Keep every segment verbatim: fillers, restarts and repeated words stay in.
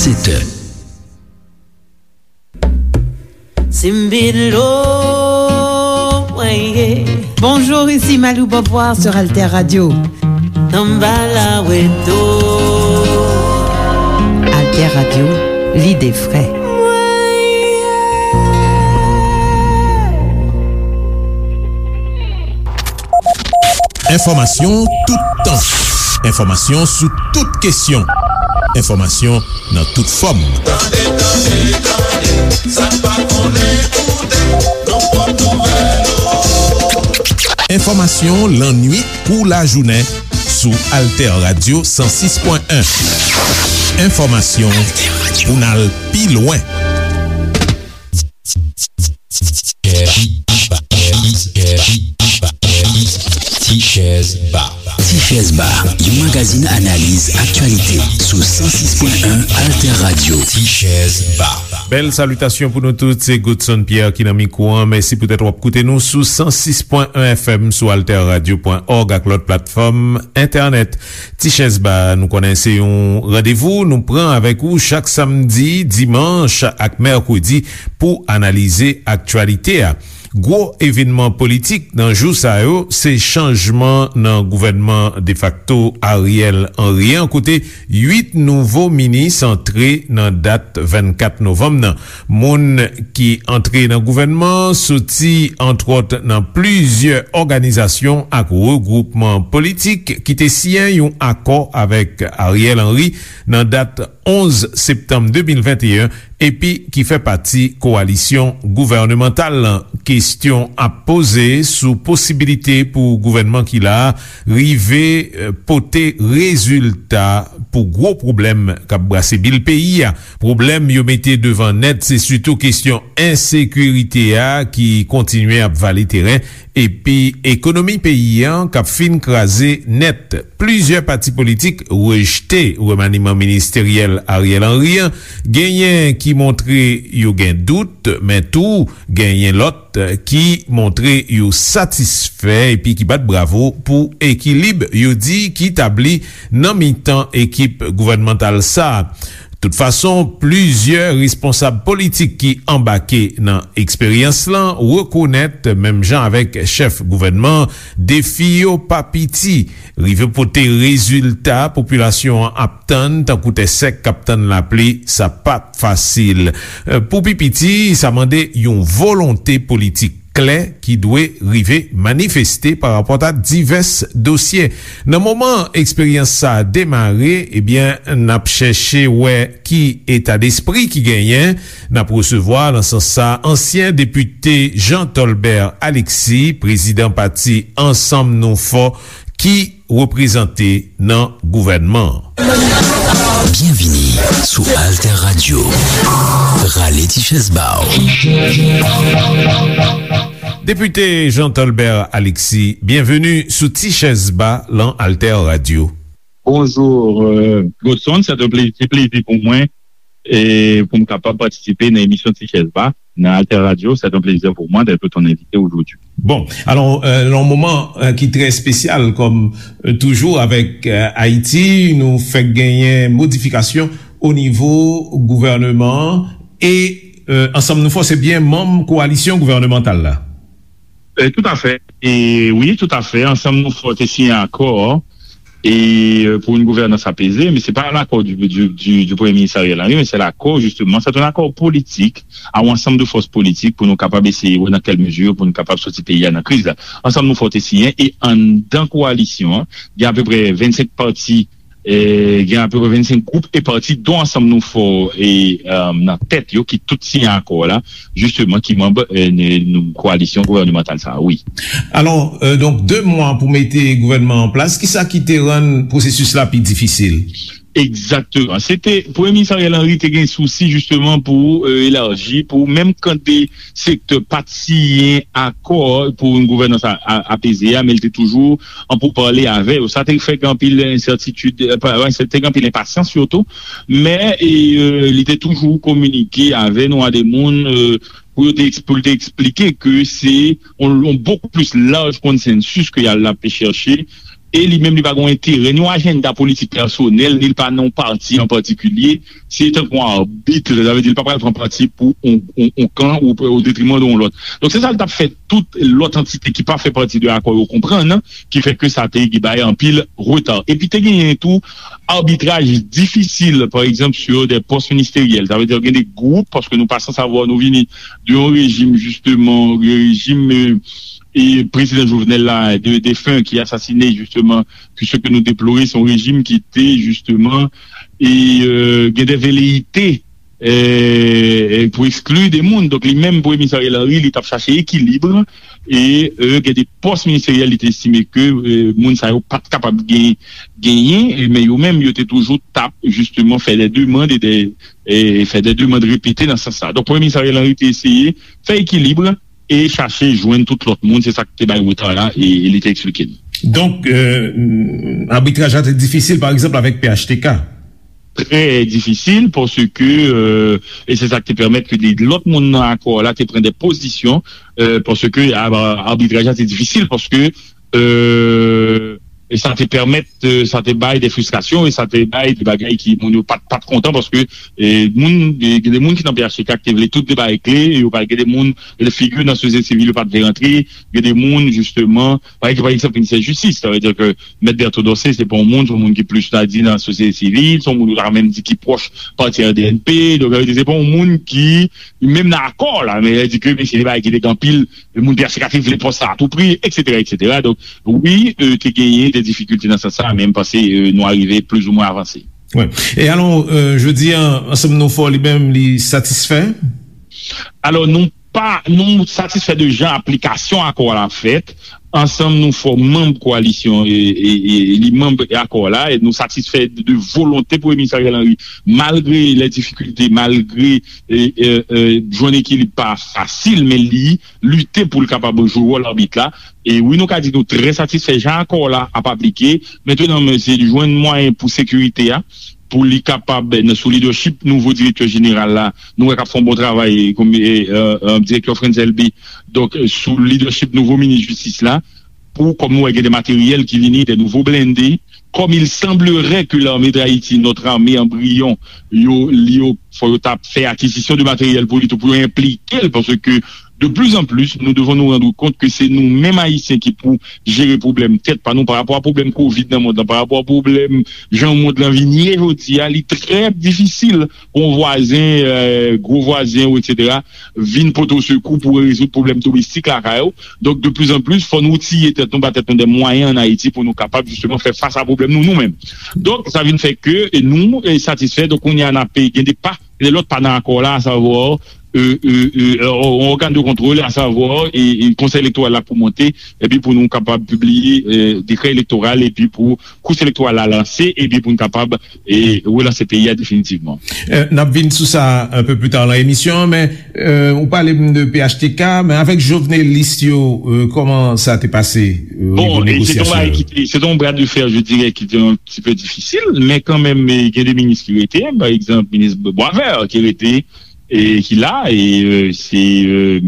Sèt è. Simbilo, mwen ye. Bonjour, ici Malou Beauvoir sur Alter Radio. Tanbala weto. Alter Radio, l'idée frais. Mwen ye. Enfòmasyon toutan. Enfòmasyon sou tout kesyon. Enfòmasyon nan tout fòm. Tande, tande, tande, sa n pa konnen koute, nan pwòp nouvèl yo. Enfòmasyon lannwit kou lajounen sou Alter Radio san sis pwen en. Enfòmasyon pou n al pi lwen. Ti Chèz Ba. Ti Chèz Ba, yon magazin analiz aktyalite sou san sis pwen en Alter Radio. Ti Chèz Ba. Bèl salitasyon pou nou tout, se Godson Pierre ki nan mikwo an. Mèsi poutèt w ap koute nou sou san sis pwen en F M, sou alter radio pwen org ak lòt platfòm entènèt. Ti Chèz Ba, nou konnen se yon randevou nou pran avèk ou chak samdi, dimanch ak mèkredi pou analize aktyalite a. Gwo evènman politik nan jou sa yo, se chanjman nan gouvènman defakto Ariel Henry an, kote uit nouvo minis antre nan dat vennkat novanm nan. Moun ki antre nan gouvènman an soti, antwòt, nan plizyè òganizasyon ak regwoupman politik ki te siyen yon akò avèk Ariel Henry nan dat onz septanm de mil venteyen, epi ki fè pati kowalisyon gouvènemantal lan. Kesyon ap poze sou posibilite pou gouvènman ki la a rive, eh, pote rezilta pou gwo pwoblèm k ap brase bil peyi a. Pwoblèm yo mete devan nèt, se sitou kesyon ensekirite a ki kontinye ap vale teren, epi ekonomi peyi an k ap fin kraze nèt. Plizyè pati politik rejte remaniman ministeryèl Ariel Henry an. Genyen ki montre yo gen dout, men tou genyen lòt ki montre yo satisfè epi ki bat bravo pou ekilib yo di ki tabli nan mitan ekip gouvènmantal sa a. Tout fason, plizyè responsab politik ki anbake nan eksperyans lan rekonèt, menm jan avèk chèf gouvènman, defi yo pa piti. Rive pote rezilta popilasyon an ap tann, tankou tè sèk k ap tann lapli, sa p ap fasil. Pou pi piti, sa mande yon volonte politik klè ki dwe rive manifeste parapòt a divès dosye. Nan moman eksperyans sa a demare, ebyen, n ap chèche wè ki etadespri ki genyen. N ap resevwa, nan sans sa, ansyen depite Jean Tolbert Alexis, prezidan pati Ansanm Nou Fò, ki reprezante nan gouvènman an. Byenvini sou Alter Radio. Rale ti chèz ba w. Depite Jean Tolbert Alexis, byenveni sou Ti Chèz Ba lan Alter Radio. Bonjou, euh, Godson, se yon plezi, se plezi pou mwen e pou m kapab patisipe nan emisyon Ti Chèz Ba nan Alter Radio. C'est un plaisir pour moi d'être ton invité aujourd'hui. Bon, alò, euh, nan yon moman, euh, ki trè espesyal, kòm, euh, toujou avèk, euh, Ayiti, nou fèk genyen modifikasyon o nivo gouvèneman an e, euh, Ansanm Nou Fò se byen manm kowalisyon gouvènemantal la. Euh, tout à fait. E wi, tout à fait. Ansanm Nou Fò te siyen akò e, euh, pour une gouvernance apaisée, men se pa l'accord du, du, du, du Premye Minis Ariel Henry, men se l'accord, justement, c'est un accord politique, a yon ansanm de fòs politik pou nou kapab eseye wè nan kèl mezi pou nou kapab soti peyi a nan kriz la. Ansanm Nou Fò te siyen e anndan kowalisyon an, gen apeprè vennsenk pati, e gen apeprè vennsenk gwoup e pati, dont Ansanm Nou Fò e, euh, nan tèt yo, ki tout siyen akò la, jisteman, ki manm, euh, n-, n-, kowalisyon gouvènemantal sa a, wi. Alò, euh, donk, de mwa pou mete gouvènman an plas, kisa ki te rann pwosesis la pi difisil? Egzakteman. Se te, Premye Minis Ariel Henry te gen sousi, jisteman, pou, euh, elaji, pou menm kan de sektè pa t siyen akò pour une gouvernance a, a, apaisée a, men l te toujou an poupale avè yo. Sa te fè gen anpil ensètitid, euh, pa, pa ensètitid, te gen anpil enpasyans sitou, men, e, euh, li te toujou kominike avè nou, a de moun, euh, pou yo te eks-, pou l te eksplike ke se yon, yon beaucoup plus large consensus ke y a, l ap chèche e li menm li pa gen yon enterè, ni yon ajanda politik pèsonèl, ni li pa nan yon pati an patikilye. Se tankou yon abit, sa vle di li pa pral pran pati pou yon, yon, yon kan ou o detriman de yon lòt. Donk, se sa l t ap fè tout lòt antite ki pa fè pati de akò yo konprann, ki fè ke sa te bay anpil reta. Epi te genyen tou abitraj difisil, pa egzanp, sur des postes ministériels. Sa vle di gen de gwoup, paske nou pa san savwa, nou vini de yon rejim, jisteman, rejim, euh, e prezidan Jovenel la, de, defen, ki asasine, jisteman, ke se ke nou deplore, se yon rejim ki te, jisteman, e, euh, gen de veleyite, euh, pou ekskli de moun. Donk, li menm, Premye Minis Ariel Henry, li t ap chache ekilib, e, euh, gen de pòs ministeryèl, li te estime ke, euh, moun sa yo pa t kapab gen, genyen, e, men yo menm, yo te toujou t ap, jisteman, fè de demann e de, e fè de demann repete nan sans sa. Donk, Premye Minis Ariel Henry te eseye fè ekilib e chache jwenn tout lòt moun. Se sa k te bay reta la, e, e li te eksplike n. Donk, euh, abitraj la te difisil, pa egzanp, avèk P H T K. Trè difisil, paske, euh, e se sa k te pèmèt ke de lòt moun nan akò la te pran de pozisyon, euh, paske a- abitraj la te difisil, paske, euh, e sa te pèmèt, euh, sa te bay de fristrasyon, e sa te bay de bagay ki moun yo pa t, pa t kontan, paske, e, moun, e, gen de moun ki nan P H T K ki te vle tout de bagay kle, e yo pa gen de moun, gen de figi nan sosyete sivil yo pa t vle rantre, gen de moun, jisteman, pa egzanp, pa egzanp, minisè jistis, sa vle di ke Mèt Bertho Dorcé, se pa yon moun, se yon moun ki plis, ta di, nan sosyete sivil, se yon moun ou ta menm di ki pwòch pati R D N P, donk, sa vle di, se pa yon moun ki, menm nan akò la, men, sa vle di ke, men se de bagay ki te gen anpil moun P H T K ki vle pòs sa a tou pri, et cetera, et cetera. Donk, wi, euh, te genyen de difikilte nan sans sa, men m panse, euh, nou arive plizoumwen avanse. Wi. E alò, euh, jodi a, Ansanm Nou Fò li menm, li satisfè? Alò, nou pa, nou satisfè de jan aplikasyon akò a la fèt. Ansanm Nou Fò manm koalisyon e, e, e li manm akò la, e nou satisfè de, de volonte Premye Minis Ariel Henry, malgre lè difikilte, malgre, e, e, e, jwenn ekilib pa fasil, men li lite pou l kapab jwe wòl abit la. E wi, nou ka di nou trè satisfè jan akò la ap aplike. Mentnan, men se jwenn mwayen pou sekirite a, pou li kapab, nan, sou lidèchip nouvo direktè jeneral la, nou wè k ap fè yon bon travay, kòm, e, e, e, direktè Frantz Elbé. Donk, sou lidèchip nouvo minis jistis la, pou, kòm nou wè, gen de materyèl ki vini, de nouvo blende. Comme il semblerait que l'armée d'Haïti, notre armée embryon, yo, li yo, fò yo t ap fè akizisyon de materyèl pou li tou, pou yo enplike l, paske de plus en plus, nous devons nous rendre compte que c'est nous-mêmes Haïtiens qui pou jere pwoblèm tèt pa nou, pa rapò a pwoblèm kovid nan mond lan, pa rapò a pwoblèm jan mond lan vin ye jodi a, li trè difisil pou yon vwazen, euh, gwo vwazen ou et cetera, vin pote w sekou pou rezoud pwoblèm domestik lakay ou. Donk, de plus en plus, fò nou outye tèt nou, ba tèt nou de mwayen ann Ayiti pou nou kapab, jisteman, fè fas a pwoblèm nou, nou menm. Donk, sa vin fè ke, e, nou, e, satisfè. Donk, kounye a, n ap gen de pa, gen de lòt pa nan akò la, asavwa, e, e, e, yon ògàn de kontwòl, asavwa, e, e, Konsèy Elektoral la pou monte, epi pou nou kapab pibliye, e, dekrè elektoral, epi pou kous elektoral la lanse, epi pou n kapab, e, relanse peyi a definitivman. Euh, n ap vin sou sa un peu plus tard nan emisyon an, men, euh, ou pale m de P H T K, men avèk jovenelis yo, euh, kòman sa te pase, euh, o nivo negosyasyon yo? Bon, e se te yon bagay ki te, se te yon bras de fer, je dirais, ki te yon ti pe difisil, men kanmenm, e, gen de minis ki rete, pa egzanp, minis Boisvert ki rete, e ki la, e, euh, se, euh,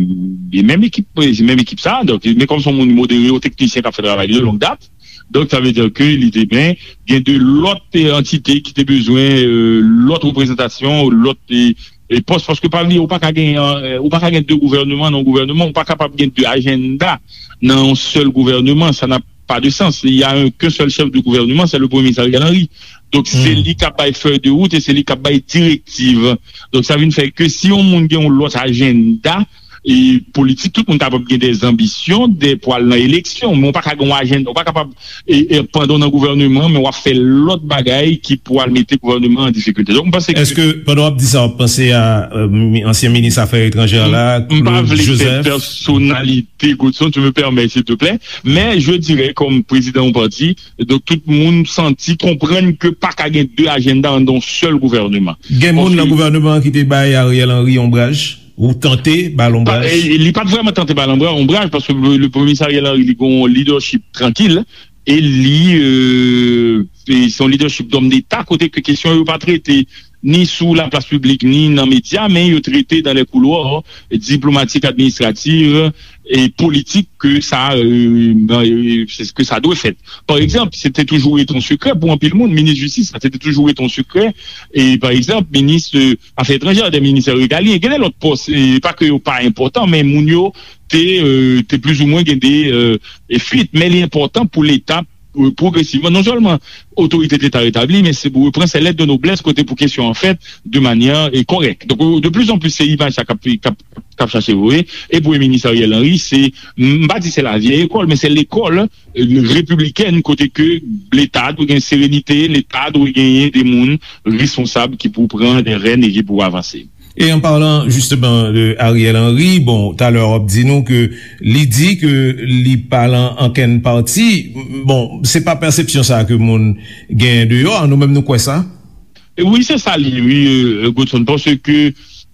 e menm ekip, se menm ekip sa, donk, men kòm se yon moun modere, yon teknisyen k ap fè travay li de longue date, donk, sa vle di ke li te byen gen de lòt, e, antite ki te bezwen, e, lòt reprezantasyon, lòt, e, e, pòs, paske pa bliye, ou pa ka gen, e, ou pa ka gen de gouvèneman nan yon gouvèneman, ou pa kapab gen de ajanda nan yon sèl gouvèneman, ça n'a pas de sens. Il y a un, qu'un seul chef de gouvernement, c'est le Premier ministre Ariel Henry. Donk, se li k ap bay fèy de wout e se li k ap bay direktiv. Donk, sa vin fè ke si yon moun gen yon lòt ajanda, e politik, tout moun kapab gen de zanbisyon, de, pou al nan eleksyon, men w pa ka gen yon ajanda, w pa kapab, e, e, pandan w nan gouvèneman, men w ap fè lòt bagay ki pou al mete gouvèneman an difikilte. Donk, m panse ke... Èske, pandan w ap di sa, w ap panse a, euh, mi-, ansyen minis afè etranjè la, Claude Joseph? M pa vle fè pèsonalite, Godson, tu me permets, s'il te plaît, men je dirais, kòm prezidan yon pati, donk tout moun santi, konprann ke pa ka gen de ajanda anndan yon sèl gouvèneman. Gen moun nan gouvèneman an ki te bay Ariel Henry onbraj? Ou tante ba l onbraj? Pa, e, li pa t vrèman tante ba l onbra-, onbraj, paske le, le Premye Minis Ariel Henry, li gen yon lidèchip trankil, e li, euh, e se yon lidèchip dòm deta, kote ke kesyon yo pa trete ni sou laplas piblik, ni nan medya, men yo trete dans les couloirs diplomatiques, administratifs et politiques que ça, euh, euh, c'est ce que ça doit faire. Par exemple, c'était toujours été un secret pour un pile monde, ministre de justice, ça c'était toujours été un secret. Et par exemple, ministre euh, affaires étrangères, des ministères régaliens, gen de lòt pòs, e pa ke yo pa enpòtan, men moun yo te, euh, te plizoumwen gen de euh, fuit, men li enpòtan pou Leta euh, pwogresivman, non sèlman otorite de Leta retabli, men se pou repran sè lèt de noblès kote pou kesyon an fèt de manyè euh, kòrèk. Donk, euh, de plus en plus, se imaj sa k ap, k ap, k ap chache voye. E Premye Minis Ariel Henry, se, m pa di se la vieille école, men se lekòl euh, repiblikèn kote ke Leta dwe gen serenite, Leta dwe genyen de moun responsab ki pou pran de rèn e ki pou avanse. Et en parlant justement de Ariel Henry, bon, talè w ap di nou ke li di ke li pa lan ankenn pati. Bon, se pa pèsepsyon sa ke moun gen deyò a, nou menm nou kwè sa? E wi, se sa li, wi, euh, Godson, paske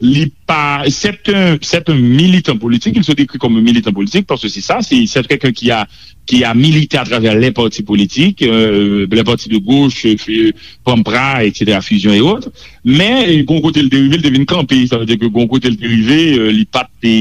li pa, c'est un, c'est un militant politique, il se décrit comme un militant politique, parce que c'est ça, c'est, c'est quelqu'un qui a, qui a milité à travers les partis politiques, euh, les partis de gauche, euh, Pampra, et cetera, Fusion et autres. Men, euh, gon kote l te rive, l te vin kanpe, sa vle di ke gon kote l te rive, euh, li pa t te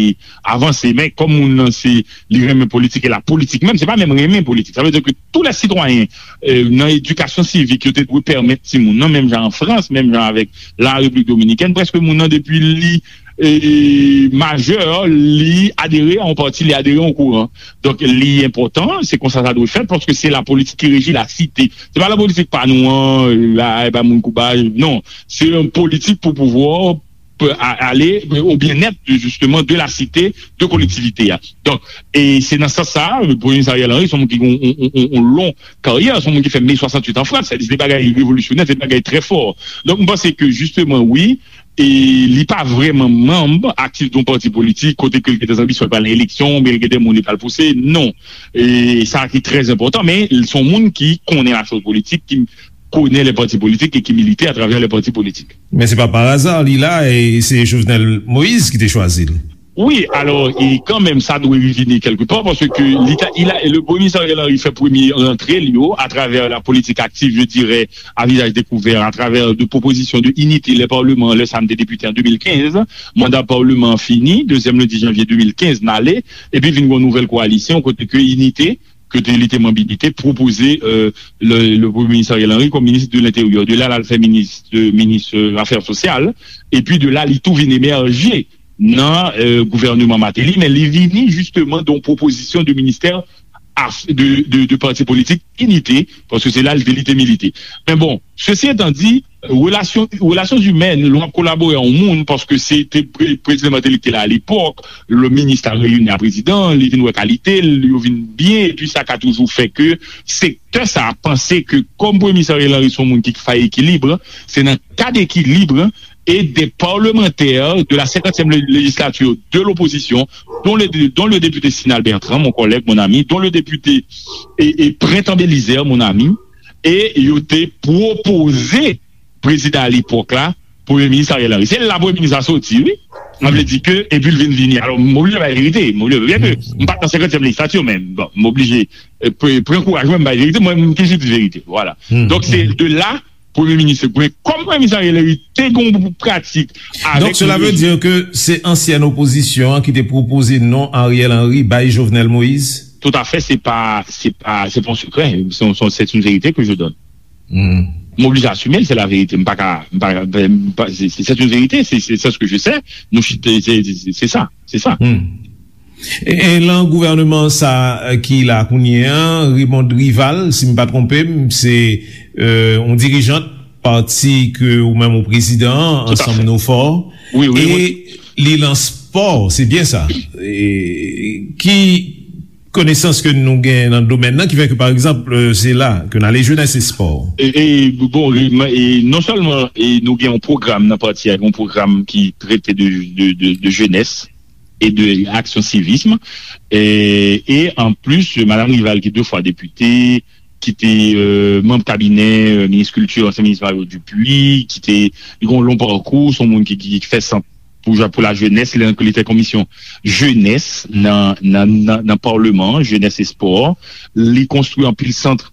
avanse. Men, kòm moun nan, se, li renmen politik, e la politik menm, se pa menm renmen politik. Sa vle di ke tous les citoyens euh, nan edikasyon sivik yo te dwe pèmèt timoun nan, menm jan an Frans, menm jan avèk la Repiblik Dominikèn, prèske moun nan depi li euh, majè, li adere a yon pati, li adere a yon kouran. Donk, li enpòtan, se konsa sa dwe fèt, paske se la politik ki reji la site. Se pa la politik pa nou an, euh, la, e ba moun koubaj, non. Se yon politik pou pouvwa, pe- a- ale au bien-être de, justement, de la cité, de kolektivite a. Donk, e se nan sans sa, Premye Minis Ariel Henry, se yon moun ki gen yon, yon, yon, yon long karyè, se yon moun ki fè Me swasanntuit an Frans, se de bagay revolisyonè, se de bagay trè fò. Donk, m panse ke, justement, wi, e li pa vrèman manm aktif de yon pati politik, kote ke l gen de anbisyon, l pral nan eleksyon, oubyen l gen de moun li pral pouse, non. E sa ki trè enpòtan, men se yon moun ki konnen la chose politique, ki konnen les partis politiques et qui militait à travers les partis politiques. Men se pa pa aza li la, e se Jovenel Moïse ki te chwazi l. Wi, alò, e kanmenm, sa dwe revini kèlke pa, paske li ta, il a, le Premye Minis Ariel Henry fè premye rantre li yo atravè la politik aktif, je dirais, à visage découvert, à travers de propositions de Unité, les parlements, le SAM te depite an de mil kenz, manda palman an fini, dezyèm lendi janvye de mil kenz, n ale, epi vin gen yon nouvèl koalisyon, kote ke Inite, ke te, li te manm Inite, pwopoze euh, le, le Premye Minis Ariel Henry kòm minis de lenteryè. De la, l al fè minis, de, minis euh, afè sosyal. Epi de la, li tou vin emèje nan euh, gouvènman Martelly, men li vini jisteman de yon pwopozisyon de ministè af- de, de, de pati politik Inite, paske se la li te, li te milite. Men bon, sesi etan di, relasyon, relasyon imèn, lè w ap kolabore a yon moun, paske se te pre- prezidan Martelly ki te la alepòk, le minis la reyini a prezidan, li vin wè kalite l, yo vin byen, epi sa ka toujou fè ke sektè sa a panse ke kòm Premye Minis Ariel Henry se yon moun ki fè ekilib, se nan kad ekilib e des parlementaires de la cinquantième lé- législature de l'opposition, dont le, dont le député Sinal Bertrand, mon collègue, mon ami, dont le député et, et Prentan Belizaire, mon ami, e yo te pwopoze prezidan alepòk la, Premye Minis Ariel Henry. Se la Premye Minis la soti, wi. Sa vle di ke, epi l vin vini. Alò, m oblije bay verite. M oblije, byen ke m pa t nan senkantyèm lejislati, men bon, m oblije euh, pre- pran kouraj mwen, m bay verite. Mwen, m toujou di verite. Vwala. Donk, se de la, Premye Minis Gwen, kòm Premye Minis Ariel Henry te gen yon pratik avèk Donk, cela veut dire que c'est ancienne opposition qui te propose non Ariel Henry by Jovenel Moïse? Tout à fait, c'est pas, c'est pas, c'est pas un secret, c'est, c'est, c'est une vérité que je donne. Hmm. M oblije asime l, se la verite. M pa ka, m pa ka, m pa, se, se, c'est une vérité, c'est, c'est, c'est ce que je sais. Nou chita, se, se, se, se sa, se sa. Hmm. E, e lan gouvènman sa ki la kounye an, Raymond Rival, si m pa twonpe m, se euh, yon dirijant pati ke ou menm ou prezidan an, Tout à Ansanm fait. Nou Fò. Wi, wi, E wi. Li lan spò, se byen sa. E, ki konesans ke nou gen nan domèn nan ki fè ke, pa egzanp, euh, se la ke n ale, jenès e spò? E, e, bon, e, e non sèlman e nou gen yon pwogram nan pati a, yon pwogram ki trete de, de, de, de jenès e de aksyon sivism. E, e an plis, Madam Rival, ki de fwa depite, ki te euh, manm kabinè euh, minis kilti, ansyen minis Mario Dupuy, ki te li gen yon long pakou, se yon moun ki, ki, ki fè sant pou, pou la jenès, li, li te komisyon jenès nan, nan, nan, nan palman, jenès e spò. Li konstwi anpil sant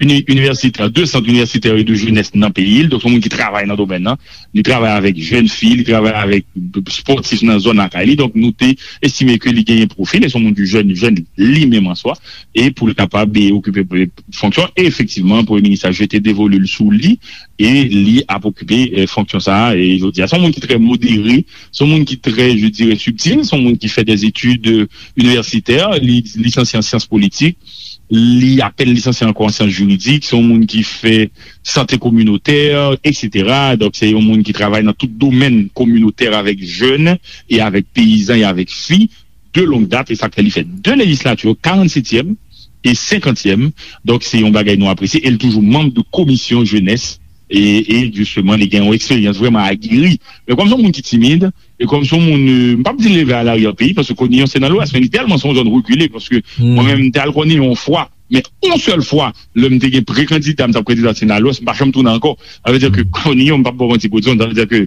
uni- inivèsitè, de sant inivèsitè e de jenès nan peyi l. Donk, se yon moun ki travay nan domèn nan. Li travay avèk jèn fi, li travay avèk spòtif nan zòn lakay li. Donk, nou te estime ke li genyen pwofil, e se yon moun ki jèn, jèn li menm an swa, e pou l kapab, e, okipe, e, fonksyon. E efektivman, Premye Minis la jete devolu l sou li, e li ap okipe, e, fonksyon sa a, e jodi a. Se yon moun ki trè modere, se yon moun ki trè, je dirais, subtil, se yon moun ki fè des études, e, universitaires, li lisansye an syans politik, li apèn lisansye ankò an syans jiridik, se yon moun ki fè sante kominotè, etsetera. Donk, se yon moun ki travay nan tout domèn kominotè avèk jèn e avèk peyizan e avèk fi de longue date, e sa k fè li fè de lejislati, karannsetyèm e senkantyèm. Donk, se yon bagay nou apresye, e l toujou manm de komisyon jenès, e, e jisteman, li gen yon eksperyans vrèman ageri. Men kòm se yon moun ki timid, e kòm se yon moun, e, m p ap di leve a larye peyi, paske Kòniyon se nan Lwès, men li tèlman se yon zòn rekile, paske mwen menm, m te al Kòniyon yon fwa, men yon sèl fwa, lè m te gen pre-kandida, m t ap kandida se nan Lwès, m pa janm tounen ankò. Sa vle di ke Kòniyon, m p ap ba w manti, Godson, sa vle di ke,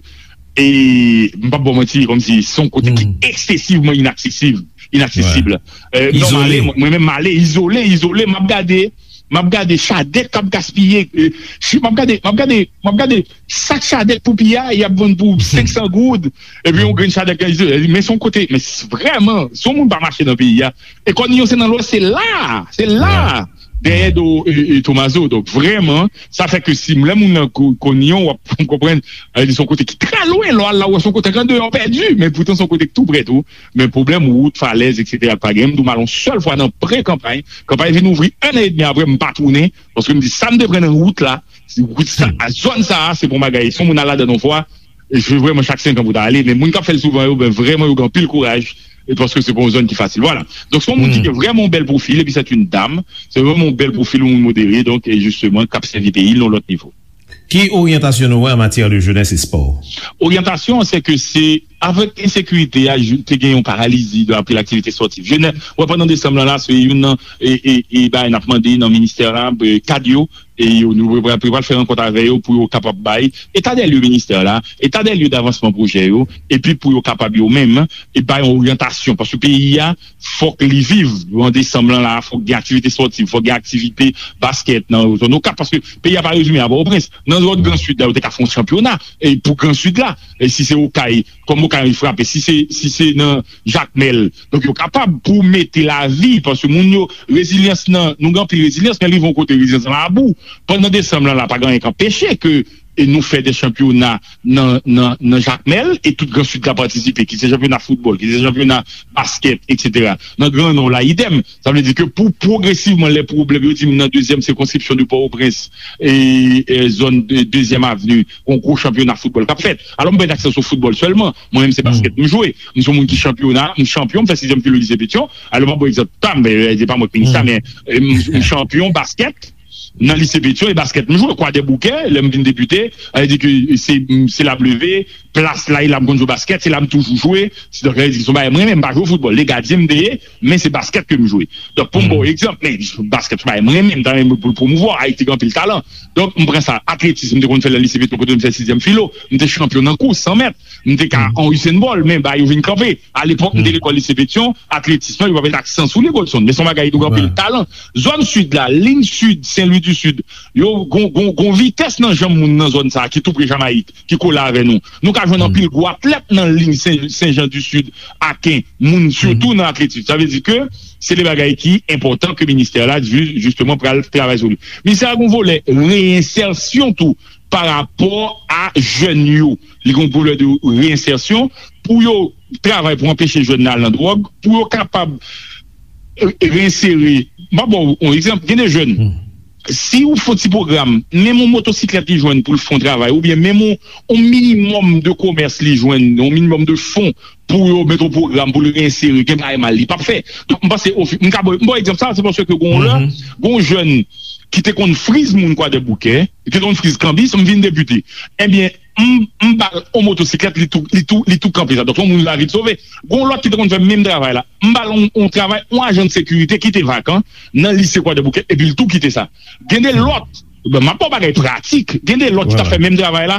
e, m p ap ba w manti, kòmsi se yon kote ki eksesivman inaksesib, inaksesib. E, non, m ale, mwen menm, m ale, izole, izole, m ap gade, m ap gade chadèk k ap gaspiye, e, si, m ap gade, m ap gade, m ap gade sak chadèk pou piye a, y ap vann pou senk san goud, epi yon grenn chadèk, men se yon kote, men s- vrèman, si yon moun pa mache nan peyi a, e Kòniyon se nan Lwès, se la, se la, dèyè do, e, e, Tomazo. Donk, vrèman, sa fè ke si lè moun nan Kò- Kòniyon, w ap konprann, e, li se yon kote ki trè lwen, lè w al la, w wè se yon kote k andeyò pèdi, men poutan se yon kote ki tou prè tou. Men pwoblèm wout, falèz, etsetera, pa gen. M di w, m al yon sèl fwa nan pre-kanpay. Kanpay vin ouvri en an edmi apre, m pa tounen. Paske m di, sa m te pran nan wout la, wout sa, a zòn sa a, se pa yon bagay. Si yon moun al ladan yon fwa, e se vrèman chak senk an pou ta ale. Men moun k ap fè l souvan yo, ben, vrèman, yo gen anpil kouraj. E paske se pa yon zòn ki fasil. Vwala. Donk, se yon moun ki gen vrèman yon bèl pwofil, epi se yon dam. Se vrèman yon bèl pwofil, yon moun modere, donk, e jisteman, k ap sèvi peyi l nan yon lòt nivo. Ki oryantasyon nou wè an matyè de jenès e spò? Oryantasyon, se ke se, avèk ensekirite a, te gen yon paralizi de, apre laktivite spòtif. Jenès, wè, pandan desanm lan la, se youn nan, e, e, e, bagay n ap mande nan ministè la, e, kad yo, e yo, nou pral, pral fè rankont avè yo pou yo kapab bay eta dè lye ministè la, eta dè lye davansman pwojè yo, epi pou yo kapab yo menm, e bay yon oryantasyon, paske peyi a, fòk li viv. An desanm lan la, fòk gen aktivite spòtif, fòk gen aktivite baskèt nan zòn Okap, paske peyi a pa rezime a Pòtoprens. Nan zòn Gran Sid la, yo te ka fè yon chanpyona, e pou Gran Sid la, e si se Okay, kòm Okay frape, si se, si se nan Jakmèl, donk yo kapab pou mete lavi, paske moun yo, rezilyans nan, nou gen anpil rezilyans, men rive yon kote rezilyans lan abou. Pandan desanm lan la, pa gen anyen k anpeche ke e nou fè de chanpyona nan, nan, nan Jakmèl, e tout Gran Sid ka patisipe, ki se chanpyona foutbòl, ki se chanpyona baskèt, etsetera. Nan Gran Nò la, idèm. Sa vle di ke pou pwogresivman, lè pwoblèm, yo di m nan dezyèm sikonskripsyon de Pòtoprens, e, e zòn de, dezyèm avni, yon gwo chanpyona foutbòl k ap fèt. Alò, m pa gen aksè sou foutbòl sèlman. Mwen menm, se baskèt m jwe. M se yon moun ki chanpyona, m chanpyon, m fè sizyèm filo lise Petyon. Alò, m ap ba w egzanp pa m, e, se pa mwen k minis la, men, e, m, m chanpyon baskèt nan lise Petyon, e baskèt m jwe. Kwadèboukè, lè m vin depite, sa vle di ke se, se la m leve, plas la, e la m konn jwe baskèt, se la m toujou jwe. Se, donk, sa vle di se yon bagay mwen renmen, m pa jwe foutbòl. Legadyen m te ye, men se baskèt ke m jwe. Donk, pou m ba w egzanp, men baskèt se yon bagay mwen renmen, m ta renmen pou l pwomouvwa, Ayiti gen anpil talan. Donk, m pran sa, atletis, m te konn fè l nan lise Petyon, kote m fè sizyèm filo, m te chanpyon nan kous san mèt, m te ka an Usain Bolt, men bagay yo vin kanpe. Alepòk, m te lekòl lise Petyon, atletis lan, yo pa met aksan sou li, Godson, men se yon bagay ki gen anpil talan. Zòn sid la, liy sid, Sen Lwi di Sid, yo gon, gon, gon vitès nan janm moun nan zòn sa a, ki tou pre Jamayik, ki kole avè nou. Nou ka jwenn anpil gwo atlèt nan liy Sen, Sen Jan di Sid, Aken, moun sitou nan atletis. Sa vle di ke se de bagay ki enpòtan ke ministè la, ju-, jisteman, pral travay sou li. Ministè a gon volè reyensèsyon tou pa rapò a jèn yo. Li gon volè de reyensèsyon pou yo travay pou anpeche jèn nan al nan dwòg, pou yo kapab, e, e, reyensere. M ap ba w yon egzanp, gen de jèn, si ou fè yon ti pwogram, menm yon motosiklèt li jwenn pou l fè yon travay, oubyen menm yon, yon minimòm de komès li jwenn, yon minimòm de fon pou yo met yon pwogram pou l reyensere, gen bagay mal li p ap fè. Donk, m panse, ofi-, m ka ba w, m ba w egzanp sa, se paske gon lè, gon jèn ki te konn friz moun Kwadèboukè, ki te konn friz kanbis, m vin depite. Ebyen, m, m ba l yon motosiklèt, li tou, li tou, li tou kanpe sa. Donk, yon moun lavi l sove. Gon lòt ki te konn fè menm travay la. M ba l yon, yon travay, yon ajan de sekirite ki te vakan nan lise Kwadèboukè, epi l tou kite sa. Gen de lòt, ben, m ap ba w bagay pratik. Gen de lòt ki t ap fè menm travay la.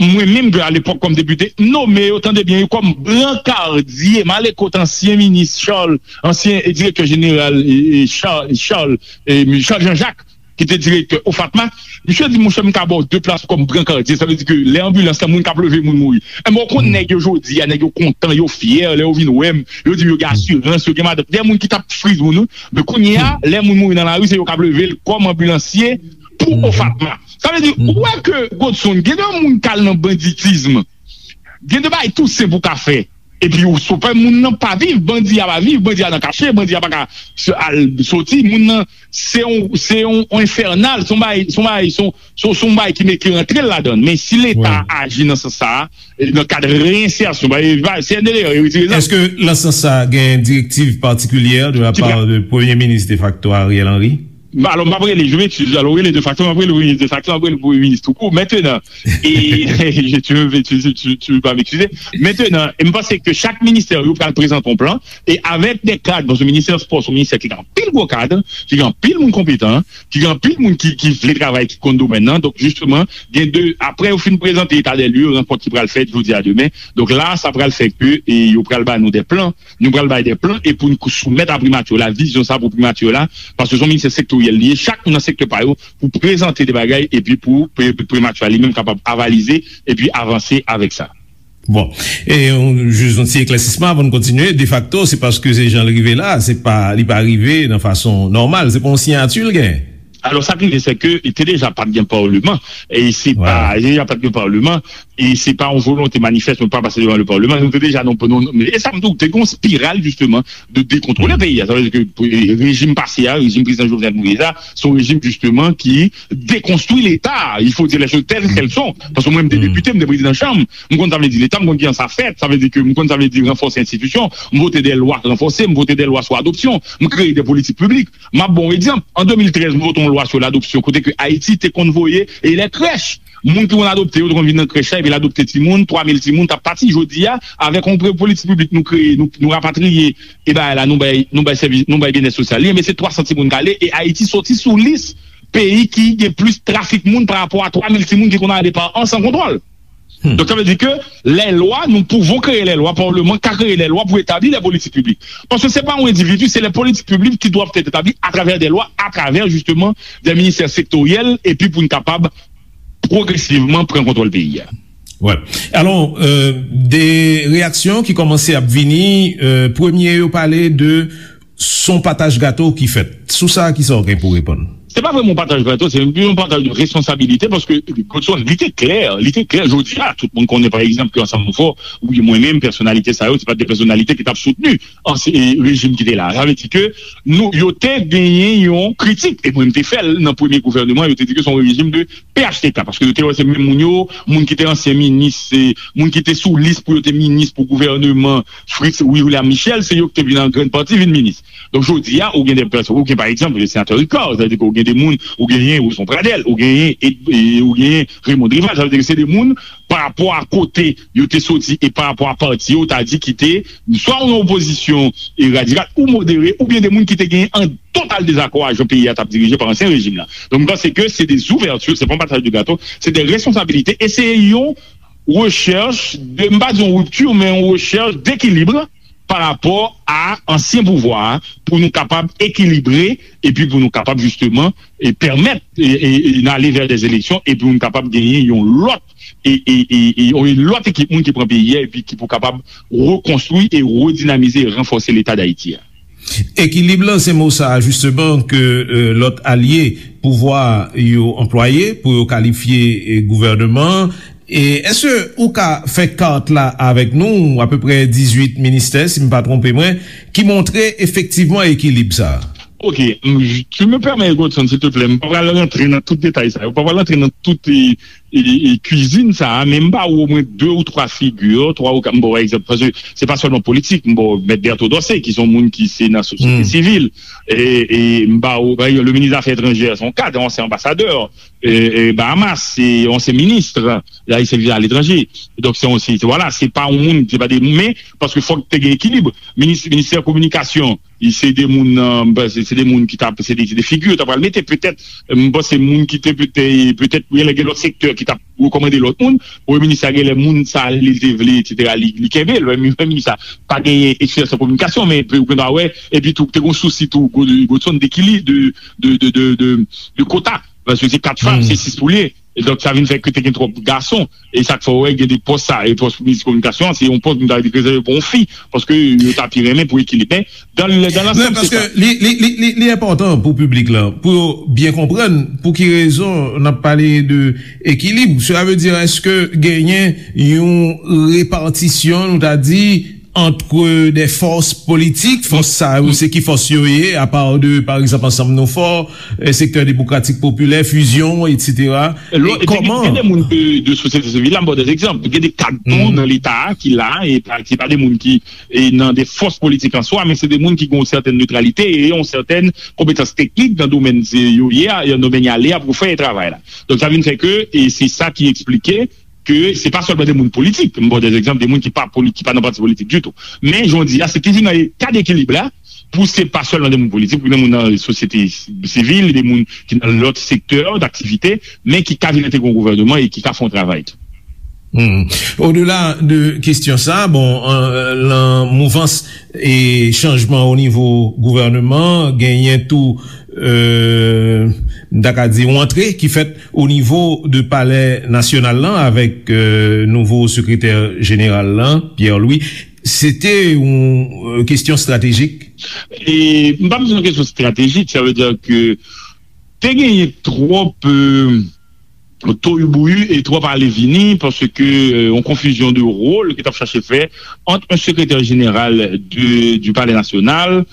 Mwen menm, alepòk, kòm depite, m nome yo, tande byen, yo kòm brankardye, m ale kot ansyen minis Charles, ansyen, e, direktè jeneral, e, e, Charles, Charles, e, Charles Jean-Jacques. ki te direktè OFATMA, misye di, monchè, m ka ba w de plas kòm brankadye. Sa vle di ke lè anbilans la, moun k ap leve moun mouri. Enben, w konn nèg yo jodi a, nèg yo kontan, yo fyè, lè yo vin wè m, yo di m yo gen asirans, yo gen madanm. Gen moun ki t ap friz moun, wi. Men kounye a, lè moun mouri nan lari, se yo k ap leve l kòm anbilansye pou OFATMA. Sa vle di, ou wè ke, Godson, gen de moun k al nan banditism. Gen de bagay tou senp ou ka fè. Epi ou sou pè moun nan pa viv, bandi a pa viv, bandi a nan kache, bandi a pa ka s- al soti. Moun nan se yon, se yon, yon enfènal, se yon bagay, se yon bagay, se yon, se yon, se yon bagay ki met ki rantre l ladan. Men si Leta aji nan sans sa a, e nan kad reyensèsyon, ba, e, ba, C N D D A retire zam. Èske nan sans sa a gen direktiv patikilyè de la pa de Premye Minis defakto Ariel Henry? Alò, m ap rele, je m'excuse, alò, rele defakto, m ap rele premye minis defakto, m ap rele premye minis toukou. Mentenan, e, je, tu, tu, tu, tu vas m'excuser. Mentenan, e m panse ke chak ministè yo pral prezante yon plan, e avèk de kad, paske ministè spò se yon ministè ki gen anpil gwo kad, ki gen anpil moun konpetan, ki gen anpil moun ki, ki vle travay, ki konn domèn nan. Donk, jisteman, gen de, apre yo fin prezante eta dè lye, rankont ki pral fèt jodi a demen. Donk la, sa pral fè ke, e, yo pral ba nou de plan, nou pral bay de plan e pou n soumèt a primati la vizyon sa pou primati la, paske se yon ministè sektoryèl li ye, chak moun nan sektè pa yo pou prezante de bagay epi pou pri- primati li menm kapab avalize epi avanse avèk sa. Bon, e yon, jis yon ti eklèsisman avan n kontinye. Defakto, se paske se jan l rive la, se pa, li pa rive nan fason nòmal, se pa yon siyati l gen. Alò, sa k rive, se ke te deja pa t gen palman, e se pa, te deja pa t gen palman, e se pa yon volonte manifès pou pa pase devan le palman, nou te deja nan, nan, e sa m di w, te gen yon spiral, jisteman, de dekontwole peyi a. Sa vle di ke, e, rejim pase a, rejim prezidan Jovenel Moïse a, se yon rejim, jisteman, ki dekonstwi Leta. Il faut dire les choses telles qu'elles sont. Paske mwen, m te depite, m te prezidan chanm, m konn sa vle di Leta, m konn kijan sa fèt, sa vle di ke m konn sa vle di ranfòse enstitisyon, m vote de lwa ranfòse, m vote de lwa sou adopsyon, m kreye de politik piblik. M ap ba w egzanp. An de mil trèz, nou vote yon lwa sou ladopsyon, kote ke Ayiti te konn voye e lè krèch. Moun ki konn adopte yo te konn vin nan krèch la, epi l adopte timoun, twa mil timoun t ap pati. Jodi a, avèk yon pre- politik piblik nou kreye, nou, nou rapatriye e bagay la, nou bay, nou bay sèvis, nou bay byennèt sosyal li, men se twa san timoun k ale, e Ayiti soti sou lis peyi ki gen plis trafik moun pa rapò a twa mil timoun ki konn ale pa an san kontwòl. Donk, sa vle di ke lè lwa, nous pouvons créer les lois, palman ka kreye lè lwa pou etabli lè politik piblik. Paske se pa yon endividi, se lè politik piblik ki dwèt èt etabli atravè de lwa, atravè, jisteman, de ministè sektoryèl, epi pou n kapab pwogresivman pran kontwòl peyi a. Wè. Alò, e, de reyaksyon ki kòmanse ap vini, e, premye yo pale de s on pataj gato ki fèt. Sou sa, kisa w gen pou reponn? Se pa vrèman yon pataj gato, se yon pataj de responsabilite, paske Godson, li te klè, li te klè, jodi a, tout moun konnen, pa egzanp, ke Ansanm Nou Fò, wi, mwen menm, pèsonalite sa yo, se pa de pèsonalite ki t ap soutni ansyen, e, rejim ki te la. Sa vle di ke nou, yo te genyen yon kritik, e mwen, m te fè l nan premye gouvènman, yo te di ke se yon rejim de P H T K, paske yo te wè se menm moun yo, moun ki te ansyen minis, se moun ki te sou lis pou yo te minis pou gouvènman Fritz William Michel, se yo ki te vin an grann pati vin minis. Donk, jodi a, ou gen de pèsonn, ou gen, pa egzanp, le senatè Ricard, sa vle di ke ou gen de moun, ou genyen Roson Pradel, ou genyen, e, e, ou genyen Raymond Rival, sa vle di ke se de moun, pa rapò a kote yo te soti e pa rapò a pati yo, ta di ki te swa nan opozisyon e radikal ou modere, oubyen de moun ki te genyen an total dezakò a jan peyi a t ap dirije pa ansyen rejim la. Donk, m panse ke se de zouvèti, se pa yon pataj de gato, se de responsabilite, e se yon rechèch de, m pa di yon ripti, men yon rechèch dekilib pa rapò a ansyen pouvwa a, pou nou kapab ekilibre, epi pou nou kapab jisteman, e pèmèt, e, e, e n ale vè de eleksyon, epi pou nou kapab genyen yon lòt, e, e, e, e, yon lòt ekip moun ki pran peyi a, epi ki pou kapab rekonstwi e redinamize e ranfòse Leta Dayiti a. Ekilib lan, se mo sa a, jisteman, ke, e, lòt alye pouvwa yo anplwaye pou yo kalifye, e, gouvènman an. E èske ou ka fè kat la avèk nou, apeprè dizuit ministè, si m pa twonpe mwen, ki montre efektivman ekilib sa a? Ok, m, tu me permets, Godson, s'il te plaît, m pa pral rantre nan tout detay sa yo, m pa pral rantre nan tout, e, e, e, kwizin sa a, men m ba ou omwen de ou twa figi, twa ou kat, m ba w egzanp, paske se pa sèlman politik, m ba w Mèt Berto Dorcé, ki se yon moun ki se nan sosyete sivil, e, e m ba ou, pa egzanp, le minis zafè etranjè, se yon kad, ansyen anbasadè, e, e, Bahamas, se yon ansyen minis, la, li sèvis aletranje. Donk, se yon, se, se, vwala, se pa yon moun, se pa de, men, paske fòk te gen ekilib. Minis, ministè kominikasyon, Se de moun, euh, m panse se de moun ki t ap, se de, se de figi yo t ap pral mete. Petèt, euh, m panse moun ki te petèt, petèt, genlè gen lòt sektè ki t ap rekòmande lòt moun. Premye minis la genlè moun sa li te vle, etsetera, li, li kenbe l. Premye minis la pa genyen eksperyans an kominikasyon, men ou gen dwa wè, epi tou, te gen sousi tou, Godson, dekilib, de, de, de, de, de, de kota. Paske se kat fanm, se sis pou l ye. E donk, sa vin fè ke te gen twòp gason. E sa k fè w wè gen de pòs sa, e pòs minis kominikasyon an, se yon pòs nou ta dwe rezève pou yon fi, paske yo ta pi renmen pou ekilib. Men, dan, dan lansam, se sa. Li, li, li, li, li enpòtan pou piblik la, pou yo byen konprann pou ki rezon n ap pale de ekilib. Sela vle di, èske genyen yon repatisyon, nou ta di, ant de fòs politik, fòs sa yo, se ki fòs yo ye, apa de, pa egzanp, Ansanm Nou Fò, eh, Sektè Demokratik Popilè, Fizyon, etsetera. Lò, e gen, kòman? Gen de moun de, de sosyete sivil la, m ba w de egzanp. Gen de kad tou nan Leta a ki la, e pa, ki pa de moun ki, e nan de fòs politik an swa, men se de moun ki gen yon sètèn netralite e yon sètèn konpetans teknik nan domèn se yo ye a, nan domèn y ale a pou fè travay la. Donk, sa vin fè ke, e se sa ki eksplike ke se pa sèlman de moun politik, m ba w de egzanp, de moun ki pa poli-, ki pa nan pati politik ditou. Men, jan w di a, se toujou nan eta dekilib la, pou se pa sèlman de moun politik, pou de moun nan sosyete sivil, de moun ki nan lòt sektè daktivite, men ki ka vin entegre yon gouvènman e ki ka fè yon travay tou. Hmm. Odela de kesyon sa, bon, euh, lan mouvans e chanjman o nivo gouvènman, genyen tou, euh, m ta ka di, yon antre ki fèt o nivo de Palè Nasyonal lan avèk, euh, nouvo sekretè jeneral lan, Pierre Louis. Se te yon, euh, kesyon estratejik? E, m pa bezwen kesyon estratejik, sa vle di ke te genyen twòp, euh, toyibouyi e twòp ale vini, paske, euh, yon konfizyon de wòl ki t ap chache fè ant yon sekretè jeneral de, du Palais National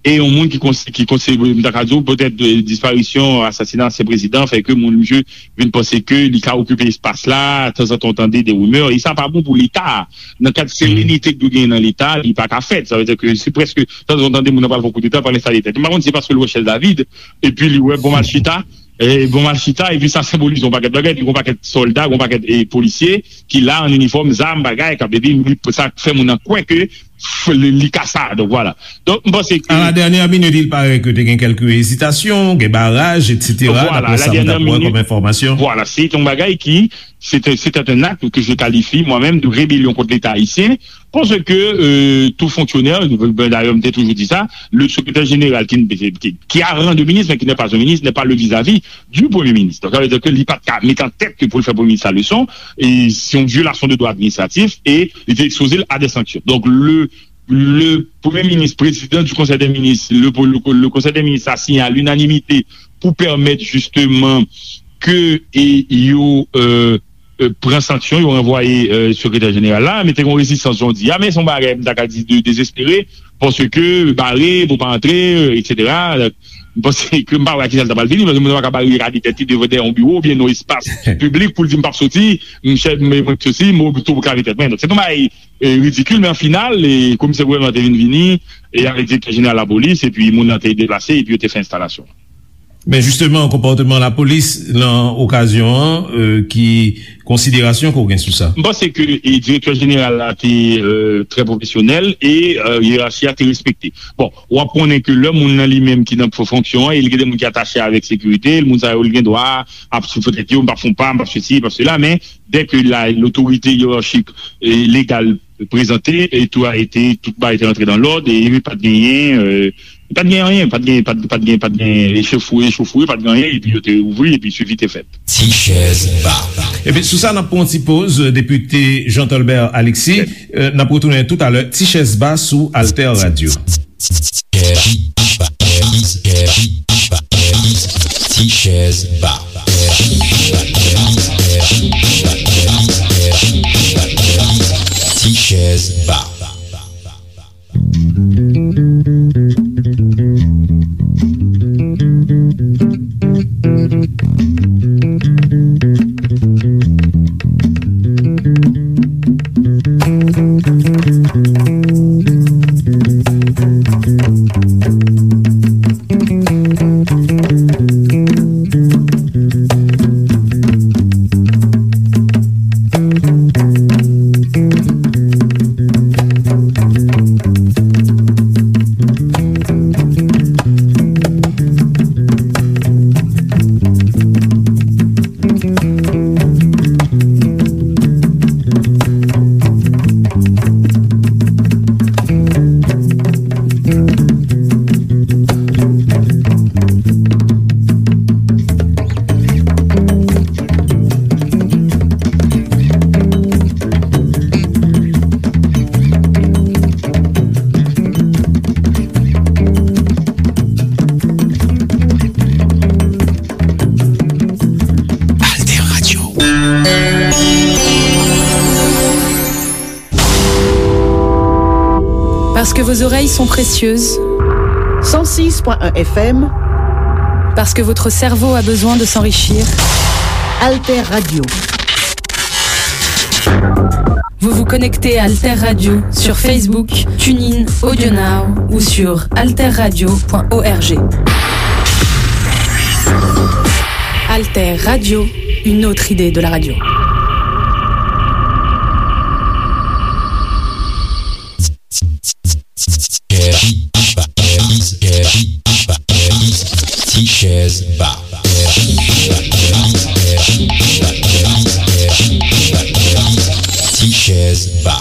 e yon moun ki konse-, ki konse-, m ta ka di w, petèt, euh, disparisyon, asasina ansyen prezidan fè ke moun, misye vin panse ke li ka okipe espas la, tanzantan w tande de rimè, e sa pa bon pou Leta a. Nan kad serenite ki dwe genyen nan Leta, li pa ka fèt. Sa vle di ke se prèske, tanzantan w tande moun nan pral fè koudeta, pral enstale tèt. M pa konn si se paske l wè chèz la vid, epi li wè bon m al chita, e bon m al chita, epi sa senbolize yon pakèt bagay, epi yon pakèt sòlda, yon pakèt, e, polisye ki la an inifòm, zam, bagay, k ap, epi li, sa fè moun nan kwè ke f-, li, li ka sa. Donk, vwala. Donk, m panse ke à la dernière minute, il paraît que te gen kèlke ezitasyon, gen baraj, etsetera, vwala, daprè sa nou t ap wè kòm enfòmasyon. Vwala, se yon bagay ki, se te, se te un acte que je qualifie moi-même de rébellion contre l'État haïtien, paske, euh, tout fonctionnaire, ben, d'ailleurs, m te toujou di sa, le secrétaire général qui, qui, qui a rang de ministre, mais qui n'est pas un ministre, n'est pas le vis-à-vis du Premier ministre. Donk, sa vle di ke li pa t ka mete an tèt ke pou l fè Premye Minis la leson, e se yon vyolasyon de dwa administratif, e li te ekspoze l a de sanksyon. Donk, le, le Premye Minis, Prezidan du Conseil des Ministres, le, le, le Conseil des Ministres a signé à l'unanimité pou pèmèt jisteman ke, e, yo, euh, euh, pran sanksyon, yo ranvwaye, euh, sekretè jeneral la, men te gen yon rezistans, jan w di a, men se yon bagay, m ta ka di, de, dezespere, paske bare, pou pa antre, euh, etsetera. M panse ke m pa wè a kisa l ta pral vini, paske moun nan pa ka barikade tèt li devan dèyè yon biwo oubyen nan espas piblik pou l di, "M p ap soti, m chèf, m, mwen soti, m tou pou kare tèt mwen." Donk, se yon bagay, euh, ridikil, men an final, e komisè gouvènman te vin vini, e avèk direktè jeneral lapolis, epi moun nan te deplase, epi yo te fè enstalasyon. Men jisteman, konpòteman lapolis nan okazyon an, euh, ki konsiderasyon ke w gen sou sa? M panse ke, e, direktè jeneral la te, euh, trè pwofesyonèl e, euh, yerachi a te respekte. Bon, w ap konnen ke lè moun nan li menm ki nan fonksyon an, e li gen de moun ki atache avèk sekirite l, moun sa yo, li gen dwa ap sou tèt yo, "M p ap fè yon pa, m p ap sesi, m p ap sela," men dè ke la, lotorite yerachik e legal prezante, e tout a été, tout bagay te rantre dans l'ordre, e pa t genyen, euh, pa t genyen anyen, pa t genyen, pa t, pa t genyen, pa t genyen echofouye, echofouye, pa t genyen anyen, epi yo te ouvri, epi swivi te fèt. Ti chèz ba. Epi sou sa, n ap pran yon ti poz, depite Jean Tolbert Alexis, euh, n ap retounen toutalè, Ti chèz ba sou Alter Radio. Ti chèz ba. Ti chèz ba. Parce que vos oreilles sont précieuses. Cent six point un F M. Parce que votre cerveau a besoin de s'enrichir. Alter Radio. Vous vous connectez à Alter Radio sur Facebook, TuneIn, AudioNow ou sur alterradio point org. Alter Radio, une autre idée de la radio. Tichèz Ba. Tichèz Ba.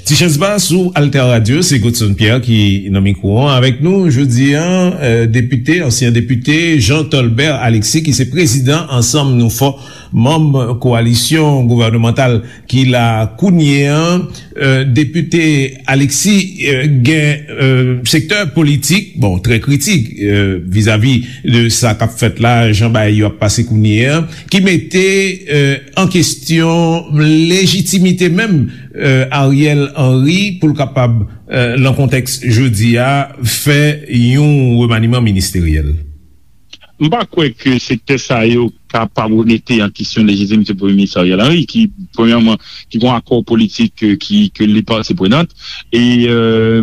Tichèz Ba sou Alter Radio, se Godson Pierre ki nan mikwo an. Avèk nou jodi an, euh, depite, ansyen depite Jean Tolbert Alexis, ki se prezidan Ansanm Nou Fò, manm kowalisyon gouvènemantal ki la kounye an. Euh, depite Alexis, euh, gen, euh, sektè politik, bon, trè kritik, euh, vizavi de sa k ap fèt la, jan bagay yo ap pase kounye an, ki mete, euh, an kesyon lejitimite menm, euh, Ariel Henry pou l kapab, euh, nan kontèks jodi a, fè yon remaniman ministeryèl. M pa kwè ke sektè sa yo kapab remete an kesyon lejitimite Premye Minis Ariel Henry, ki, premyèman, ki gen yon akò politik, euh, ki, ke li pati prenant. E, euh,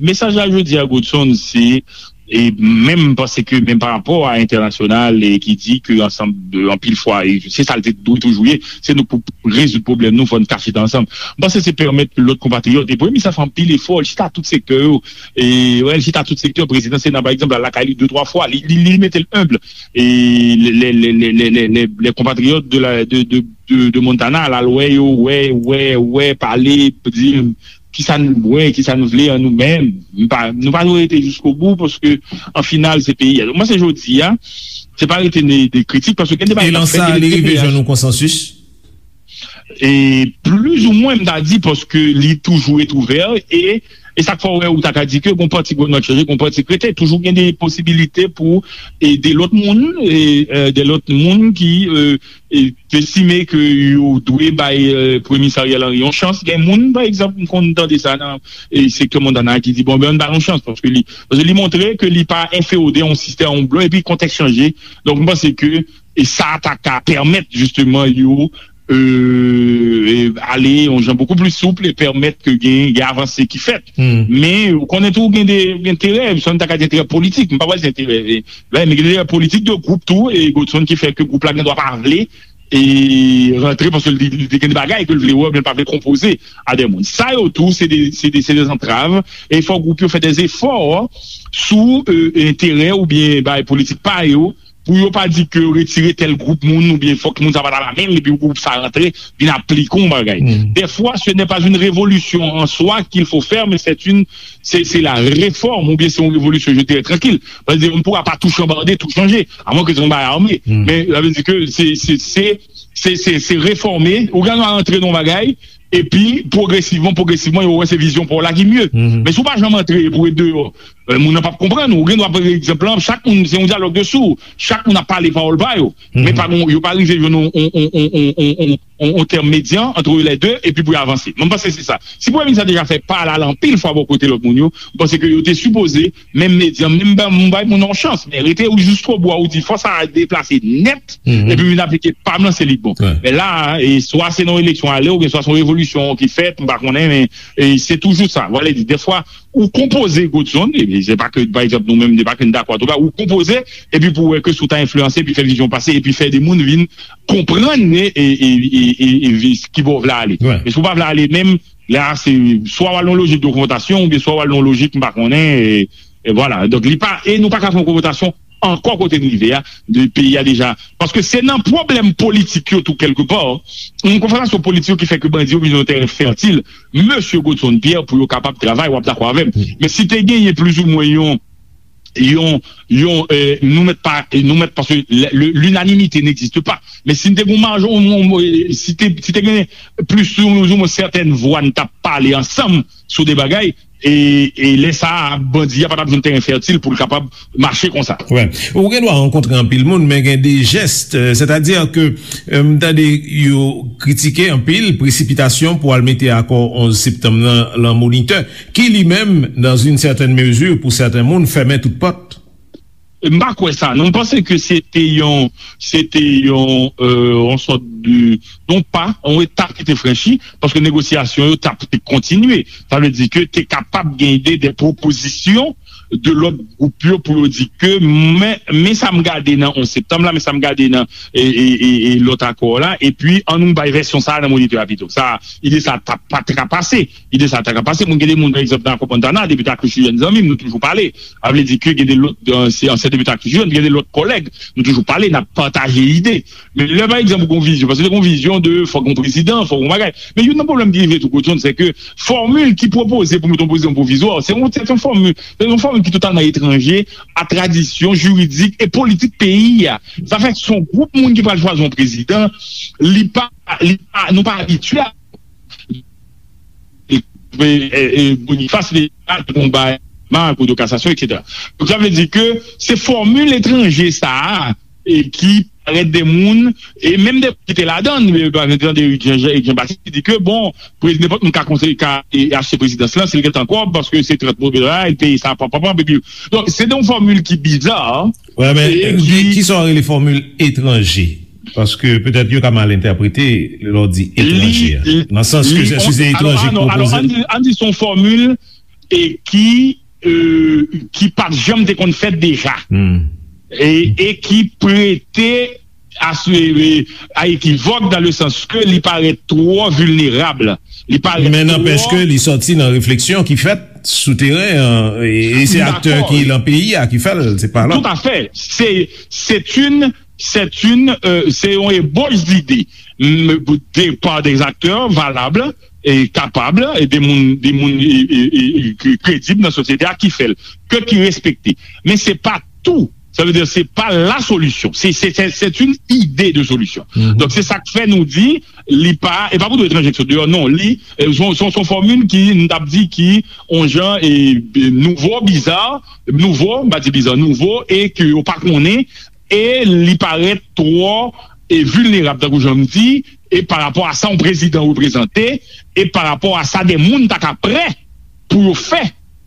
mesaj la jodi a, Godson, se, e menm m panse ke menm pa rapò a entènasyonal, e ki di ke ansanm de, anpil fwa, e se sa l te dwe toujou ye, se nou pou rezoud pwoblèm nou, fò n ka chita ansanm. M panse se pèmèt ke lòt konpatriyòt, e Premye Minis la fè anpil efò, li chita tout sektè yo, e, wè, li chita tout sektè, prezidan Sena, pa egzanp, al lakay li de, twa fwa, li, li, li mete l enb, e lè, lè, lè konpatriyòt de, la, de, de, de, de Montana al, al wè yo, wè, wè, wè, pale, di kisa n bwè, kisa n vle an nou menm. Nou pa, nou pa dwe rete jiskobou, paske an final, se peyi a. Donk, mwen, se jodi a, se pa rete de, de kritik, paske gen deba. E lan sa, li rive jwenn yon konsansis? E plizoumwen, m ta di, paske li toujou ret ouvè, e, e sa k fè w wè, ou ta ka di ke gon pati goumen ap chanje, gon pati k rete, toujou gen de posibilite pou e de lòt moun, e, e, de lòt moun ki, e, e, estime ke yo dwe bay, e, Premye Minis Ariel Henry yon chans. Gen moun, pa egzanp, m konn tande sa nan, e, sektè Montana ki di, bon, ben, ann ba l yon chans, paske li, paske li montre ke li pa enfeyode yon sistèm, yon blan, epi kontèks chanje. Donk, m panse ke, e sa ta ka pèmèt, jisteman, yo, e, e, ale yon jan bokou pli soup e pèmèt ke gen, gen avanse ki fèt. Men, ou konnen tou, gen de, gen enterè, sa n ta ka di enterè politik, m pa pral di enterè, e, men gen enterè politik de gwoup tou, e Godson ki fè ke gwoup la gen dwa pa vle, e rantre, paske li, li te gen de bagay ke l vle wè, men l pa vle konpoze a de moun. Sa yo tou, se de, se de, se de zantrav, e fò gwoup yo fè de efò sou, e, enterè oubyen bagay politik pa yo, pou yo pa di ke yo retire tèl gwoup moun, oubyen fòk moun sa pa t al amenn, epi gwoup sa rantre, vin aplike yon bagay. Dèfwa, ce n'est pas une révolution en soi qu'il faut faire, mais c'est une, c'est, c'est la réforme, oubyen se yon revolisyon, je dirais, trankil. Paske on ne pourra pas tout chambarder, tout changer, à moins que se yon bagay ame. Men, sa vle di ke se, se, se, se, se, se refòme, ou gen dwa rantre nan yon bagay, epi pwogresivman, pwogresivman, yo wè se vizyon pa w la ki mye. Men si w pa janm antre pou ret deyò, e, moun nan p ap konprann ou. Ou gen dwa, pa egzanp, chak moun, se yon dyalòg de sou. Chak moun ap pale pawòl pa yo. Men pa gon, yo pa rive jwenn yon, yon, yon, yon, yon, yon, yon tèm medyan ant lè de, epi pou yo avanse. Mwen, m panse se sa. Si premye minis la deja fè pa l ale anpil fwa bò kote lòt moun yo, m panse ke yo te sipoze, menm medyan, menm ba, m bay moun nan yon chans, men rete ou jiskobou a, ou di fò sa deplase nèt, epi vin aplike pa m nan, se li k bon. Men la, e swa se nan eleksyon ale, oubyen swa se yon revolisyon ki fèt, m pa konnen, men, e se toujou sa. Vale di, dèfwa, ou konpoze Godson, e se pa ke, pa egzanp, nou menm, se pa ke n dakò ak ou pa, ou konpoze, epi pou wè ke si w ta enfliyanse, epi fè vizyon pase, epi fè de moun vin konprann, e, e, e, e, e, e ki bò w vle ale. Men si w pa vle ale menm, la, se swa w al nan lojik de konfwontasyon, oubyen swa w al nan lojik, m pa konnen, e, e vwala. Donk, li pa, e nou pa ka fè yon konfwontasyon ankò kote n rive a, de peyi a deja. Paske se nan pwoblèm politik yo tou, kèlkepa, yon konfwontasyon politik yo ki fè ke bandi yo vin yon teren fètil, mesye Godson Pierre, pou yo kapab travay, w ap dakò avè m. Men si te genyen plizoumwen yon, yon, yon, e, nou mèt pa, nou mèt, paske le, le, l'unanimité n'existe pas. Men si n te gen yon majò, yon, yon, e, si te, si te gen plis ou, ou mwen sètèn vwa, n t ap pale ansanm sou de bagay, e, e lè sa a, bandi a pa t ap jwenn teren fètil pou l kapab mache konsa. Wi. Ou gen dwa rankontre anpil moun, men gen de jès, euh, sètadi ke, euh, m tande yo kritike anpil presipitasyon pou al mete akò onz septanm nan lan Monitè, ki li menm, dans une certaine mesure, pou sèten moun, fèmen tout pòt. M pa kwè sa, non. M panse ke se te yon, se te yon, euh, yon sòt de, yon pa, yon etap ki te franchi, paske negosyasyon yo t ap kontinye. Sa vle di ke te kapab gen de, de pwopozisyon de lòt gwoup yo pou yo di ke, men, men sa m gade nan onz septanm la, men sa m gade nan, e, e, e, e lòt akò la, epi ann nou bay vèsyon sa a nan Monitè a pito. Sa, ide sa t ap pa t ka pase. Ide sa ta ka pase. Moun, gen de moun, pa egzanp, nan Akò Montana, depite Akrichou, zanmi m, nou toujou pale. A vle di ke gen de lòt, euh, se ansyen depite Akrichou, gen de lòt kòlèg, nou toujou pale, n ap pataje ide. Men lè, pa egzanp, ou gen yon vizyon, paske se yon vizyon de fòk yon prezidan, fòk yon bagay. Men youn nan pwoblèm ki rive tou, Godson, se ke fòmil ki pwopoze pou mete yon prezidan pwovizwa, se yon, se yon fòmil, se yon fòmil ki totalman etranje a tradisyon jiridik e politik peyi a. Sa fè se yon gwoup moun ki pral chwazi yon prezidan, li pa, li pa, nou pa abitye a e, e, e Boniface Léonard te konn bay ma Kou de kasasyon, etsetera. Donk, sa vle di ke se fòmil etranje sa a, e ki parèt de moun, e menm de moun ki te ladan, e, pa egzanp, Eric Jean, Eric Jean Baptiste, ki di ke, bon, prez-, nenpòt moun ka konseye, ka, e, achte prezidans lan, si l gentan kòb, paske se trant mil dola, e l peye sa, pam, pam, pam, epi, donk, se de yon fòmil ki biza, Wè, men, e, ki, ki sa w rele fòmil etranje? Paske petèt yo ka mal entèprete lè w di etranje a. Nan sans ke se, si se etranje k pwopoze. Alò, ann di, ann di se yon fòmil, e, ki, e, ki pa t janm te konn fèt deja. E, e ki prete a, e, a ekivòk, dans le sens que li parèt twò vilnerab. Li parèt twò. Men nanpèch ke li sòti nan refleksyon ki fèt sou teren an, e, e se aktè ki lan peyi a ki fè l, se pa lòt. Tout à fait. C'est, c'est une, c'est une, euh, c'est yon ebauche d'idée. M, de, par des acteurs valables e kapab, e de moun, de moun, e, e, e, e, ki kredib nan sosyete a ki fè l, ke ki respekte. Men se pa tou. Sa vle di, se pa la solution. Se, se, se, c'est une idée de solution. Donk, se sa k fè nou di, li pa, e pa pou tout etranje ki sot deyò, non. Li, e, son, son, son fòmil ki, nou t ap di ki, on jan, e, e, nouvo, biza, nouvo, m pa di biza, nouvo, e ke yo pa konnen, e li parèt twò, e, vilnerab, tankou jan m di, e pa rapò a sa yon prezidan reprezante, e pa rapò a sa de moun ta ka prè pou yo fè,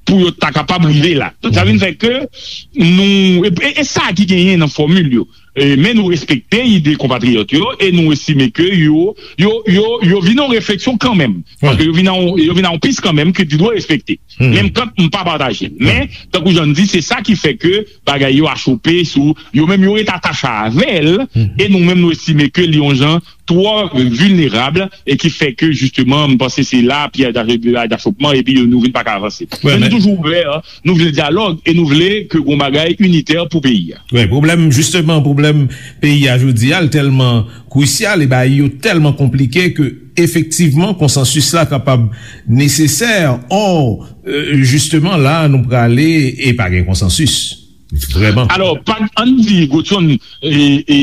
pou yo ta kapab rive la. Donk, sa vin fè ke nou, e, e, e sa ki genyen nan fòmil yo. E, men nou respekte ide konpatriyòt yo, e nou estime ke yo, yo, yo, yo vin yon refleksyon kanmenm. Paske yo vin a yon, yo vin a yon pis kanmenm ke ti dwe respekte. Menm kan m pa pataje l. Men, tankou jan m di, se sa ki fè ke bagay yo achope sou, yo menm yo ret atache avè l, e nou menm nou estime ke li yon jan twò vilnerab, e ki fè ke, jisteman, m panse se la, pyèj dachopman, epi nou vin pa ka avanse. Men nou toujou ouvè, nou vle dyalòg, e nou vle ke gon bagay initè pou peyi a. Wi, pwoblèm, jisteman, pwoblèm peyi a jodi a, l tèlman krisyal, e bagay yo tèlman konplike ke, efektivman, konsansis la kapab nesesè, ò, e, jisteman, la, nou prale e pa gen konsansis. Vrèman. Alò, pa, ann di, Godson, e, e,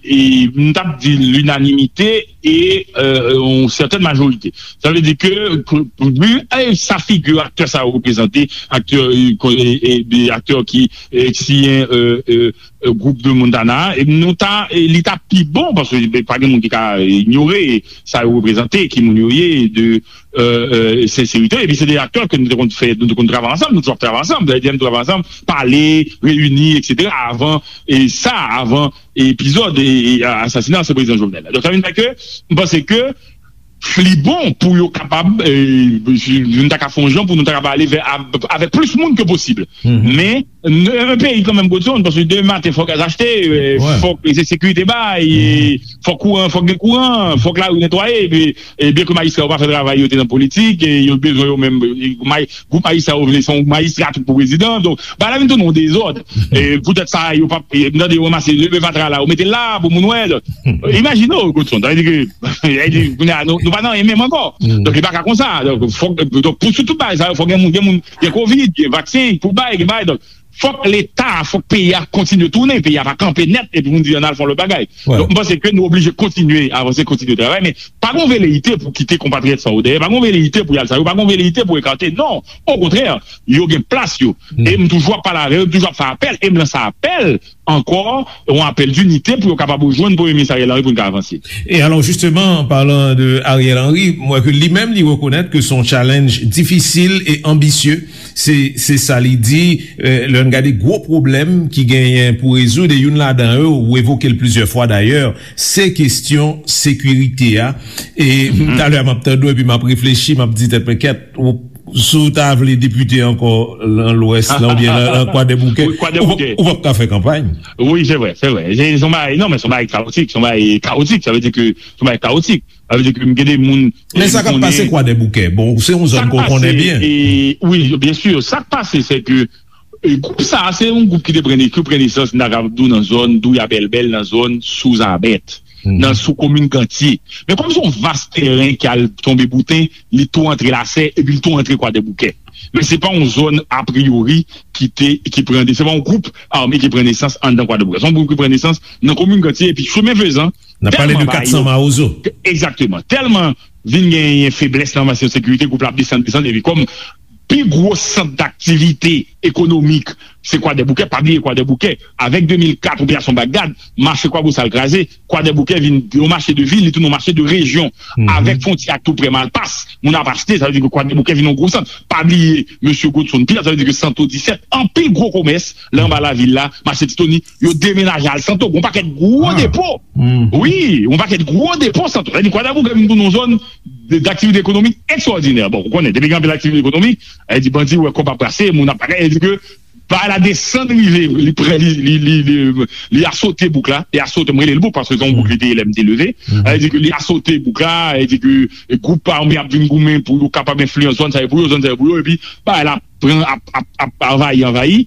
e, m t ap di linanimite e, e, yon sètèn majorite. Sa vle di ke, ke, vi, e, sa figi aktè sa yo reprezante, aktè, e, ko-, e, e, de aktè ki, e, siyen, e, e, e, gwoup de Montana, e nou ta, e, li ta pi bon, paske, e, pa gen moun ki ka, e, inyore sa yo reprezante, ki moun yo ye, de, e, e, senserite. Epi se de aktè ke nou te konn fè, nou te konn travay ansanm, nou toujou ap travay ansanm. Dayè, nou travay ansanm, pale, reyini, etsetera, avan, e sa, avan epizòd, e, e, asasina ansyen prezidan Jovenel la. Donk, sa vin fè ke, m panse ke li bon pou yo kapab, e, nou ta ka fè yon jan pou nou ta kapab ale vè, a, avèk plis moun ke posib. Men, n-, yon peyi kanmenm, Godson, paske demen maten, fòk gaz achte, e, fòk, e, sekirite bay, e, fòk kouran, fòk gen kouran, fòk lari netwaye, epi, e, byen ke majistra yo pa fè travay yo te nan politik, e yo bezwen yo menm, e, maj-, gwoup majistra yo vle se yon majistra tout pou prezidan, donk, bagay la vin tounen yon dezòd. E, poutèt sa, yo pa, e, m tande yo ranmase leve fatra la, yo mete l la pou moun wè, donk, imajine w, Godson, sa vle di ke, sa vle di, kounye a, nou, nou pa nan anyen menm ankò. Donk, li pa ka konsa. Donk, fòk, donk, pou sou tout bagay sa yo, fòk gen moun, gen moun, gen kovid, gen vaksen pou bay, gen bagay, donk, Fòk Leta a, fòk peyi a kontinye tounen, peyi a pa kanpe nèt epi pou n di ann al fè yon lòt bagay. Donk, m panse ke nou oblije kontinye avanse, kontinye travay, men pa gen veleite pou kite konpatriyòt sa yo dèyè, pa gen veleite pou y al sa yo, pa gen veleite pou ekate, non, okontrè, yo gen plas yo. E m toujou ap pale avè yo, m toujou ap fè apèl, e m lanse apèl ankò, yon apèl dinite pou yo kapab rejwenn Premye Minis Ariel Henry pou n ka avanse. E alò, justement, an palan de Ariel Henry, m wè ke li menm, li rekonèt ke se yon challenge difisil e anbisye. Se, se sa li di, eh, lè n gade gwo pwoblèm ki genyen pou rezoud, e youn ladan yo, ou evoke l plizyè fwa dayè, se kesyon sekirite a. E talè a m ap tande w epi m ap reflechi, m ap di tèt mwen, kèt, ou, si w ta vle depite ankò nan Lwès la oubyen nan, nan Kwadèboukè, ou p ap ka fè kanpay. Wi, se vre, se vre. Se, se yon bagay, non, men se yon bagay kawotik, se yon bagay kawotik, sa vle di ke se yon bagay kawotik. Sa vle di ke m gen de moun. Men sa k ap pase Kwadèboukè, bon, se yon zòn ke w konnen byen. Wi, byen si. Sa k pase, se ke e, gwoup sa a, se yon gwoup ki te pran, ki pran nesans, m ta kapab di w, nan zòn Douya Bèlbèl, nan zòn Souzabèt, nan sou komin Gantye. Men kòm se yon vas tèren ki al tonbe bouten, li tou antre Lasè, epi li tou antre Kwadèboukè. Men se pa yon zòn, apriyori, ki te, ki pran, se pa yon gwoup ame ki pran nesans anndan Kwadèboukè. Se yon gwoup ki pran nesans nan komin Gantye, epi chemen fezan, N ap pale de katsan Mawozo. Egzakteman. Tèlman vin genyen feblès nan kesyon sekirite, gwoup la ap desann, desann, epi kòm pi gwo sant daktivite ekonomik, se Kwadèboukè, pa bliye Kwadèboukè, avèk de mil kat, Operasyon Bagdad, mache Kwabosal kraze, Kwadèboukè vin yon mache de vil, li tounen yon mache de rejyon, avèk fwontyè ak tou prè Malpas, moun ap achte, sa vle di ke Kwadèboukè vin yon gwo sant. Pa bliye, mesye Godson Pierre, sa vle di ke Santo disèt, anpil gwo komès, la anba lavil la, mache Titoni, yo demenaje al Santo, gon pakèt gwo depo. Wi, yon pakèt gwo depo Santo. Sa vle di Kwadèboukè vin tounen yon zòn de, daktivite ekonomik ekstraòdinè. Bon, ou konnen, depi gen anpil aktivite ekonomik, sa vle di bandi wè kòb ap brase, moun ap bagay, sa vle di ke bagay la desann rive, li pran, li, li, li, li, li asote bouk la, li asote, m rele l bouk, paske se yon bouk li te ye lè m te leve. Sa vle di ke li asote bouk la, sa vle di ke gwoup ame ap vin goumen pou yo kapab enfliyans zòn sa yo pou yo, zòn sa yo pou yo, epi bagay la pran, ap, ap, ap anvayi, anvayi.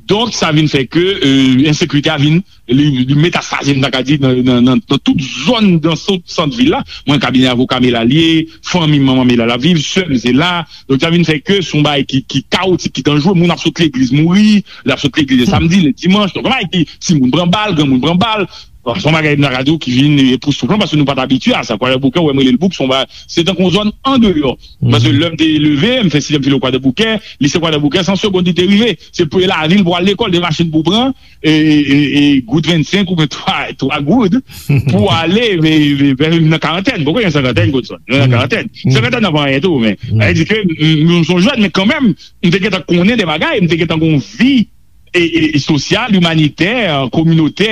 Donk, sa vin fè ke, e, ensekirite a vin li, li metastaze, m ta ka di, nan, nan, nan, nan tout zòn, nan tout sant vil la. Mwen, kabinè avoka m e la l ye, fanmi manman m e la l ap viv, sè m se la. Donk, sa vin fè ke se yon bagay ki, ki kawotik, ki danjere. Moun ap sot legliz mouri, l ap sot legliz le samdi, le dimanch. Donk, yon bagay ki, timoun pran bal, granmoun pran bal. Bon, se yon bagay m ta ka di w ki vin epoustouflan paske nou pa t abitye a sa. Kwadèboukè, ou wè m rele l bouk, se yon bagay, se tankou yon zòn andeyò. Paske lè m te leve, m fè sizyèm filo Kwadèboukè, lise Kwadèboukè, san segonn li te rive. Se pou lavil pou al lekòl, de machin pou pran, e, e, e, e goud vennsenk oubyen twa, twa goud pou ale, e, e, e, nan karantèn. Poko gen senkantèn, Godson? Nan karantèn. Senkantèn nan pa anyen tou, men. Sa vle di ke m, m, m se yon jèn, men kanmenm, m te gentan konnen de bagay, m te gentan gen yon vi e, e, e sosyal, imanitè, kominotè,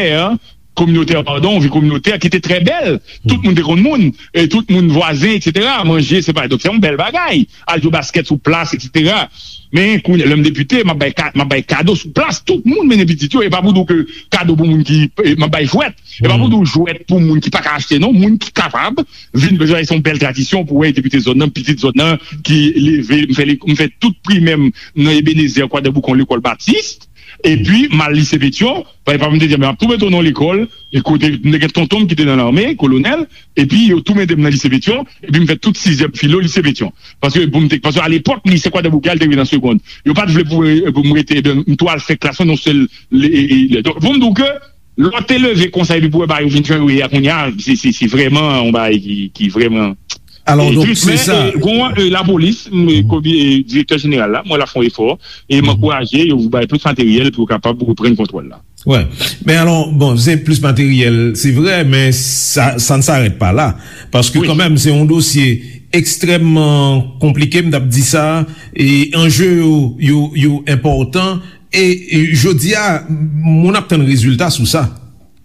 kominotè, padon, vi kominotè ki te trè bèl. Tout moun te konn moun, e tout moun vwazen, etsetera. Manje, se pa, donk, se yon bèl bagay. Al jwe baskèt sou plas, etsetera. Men, kounye a, lè m depite, m ap bay ka-, m ap bay kado sou plas. Tout moun mennen pitit yo. E pa pou di w ke kado pou moun ki, e, m ap bay jwèt. E pa pou di w jwèt pou moun ki pa ka achte, non. Moun ki kapab vin, bezwen, se yon bèl tradisyon pou wè depite zòn nan, pitit zòn nan, ki leve, m fè, m fè tout primè m nan Ebenezè, Kwadèboukè, yon lekòl batis. Epi, m al lise Petyon, papa m te di, "Men, m ap tou mete w nan yon lekòl," e kote, m te gen tonton m ki te nan lame, kolonèl, epi yo tou mete m nan lise Petyon, epi m fè tout sizyèm filo lise Petyon. Paske pou m te, paske alepòk, lise Kwadèboukè a, l te rive nan segonn. Yo pa t vle pou, pou m rete, ebyen, m tou al fè klas mwen nan yon sèl, le, e, e, le, donk, pou m di w ke, lè w te leve konsa, epi pou w wè bagay yo vin jan yo ye a kounye a, se, se, se vrèman yon bagay ki, ki vrèman Alò, donk, se sa. Gon, e, lapolis, m, e, komi-, e, direktè jeneral la, mwen la fè yon efò, e m ankouraje yo pou bay plis materyèl pou yo kapab reprann kontwòl la. Wi. Men alò, bon, se plis materyèl, se vre, men sa, sa ne s'arrête pas là. Paske kanmenm, se yon dosye ekstrèmman konplike, m t ap di sa, e anje yo, yo, yo enpòtan, e, e jodi a, moun ap tann rezilta sou sa.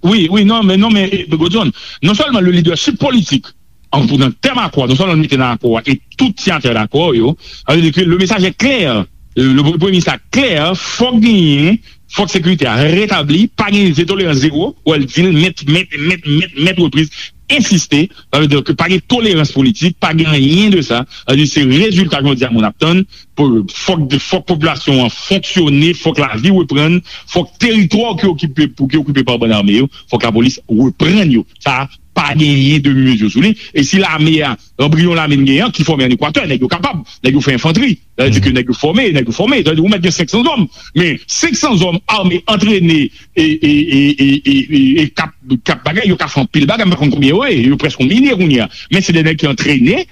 Wi, wi, non, men, non, men, e, Godson, non sèlman le leadership politik, an, pou nan tèm akò, non sèlman nou mete nan akò a, e tout siyatè dakò yo, sa vle di ke le message est clair, le, le premye minis la klè, fòk genyen, fòk sekirite a retabli, pa gen tolerans zewo, wè l di l nèt, nèt, nèt, nèt, nèt repriz, ensiste, sa vle di ke pa gen tolerans politik, pa gen anyen de sa, sa vle di se rezilta jodi a moun ap tann, pou, fòk, fòk popilasyon an fonksyone, fòk lavi reprann, fòk teritwa ki okipe, pou ki okipe pa bann ame yo, fòk lapolis reprann yo. Sa, pa genyen demi mezi sou li. E si lame a, anbriyon lame n genyen an, ki fòme ann Ekwatè, nèg yo kapab, nèg yo fè enfantri. Sa vle di ke nèg yo fòme, nèg yo fòme. Sa vle di ou mèt gen senk san zòm. Men senk san zòm ame, antrene, e, e, e, e, e, e, e k ap, k ap bagay, yo ka fè anpil bagay, m pa konn konbyen yo ye, yo prèske yon milye kounye a. Men se de nèg ki antrene,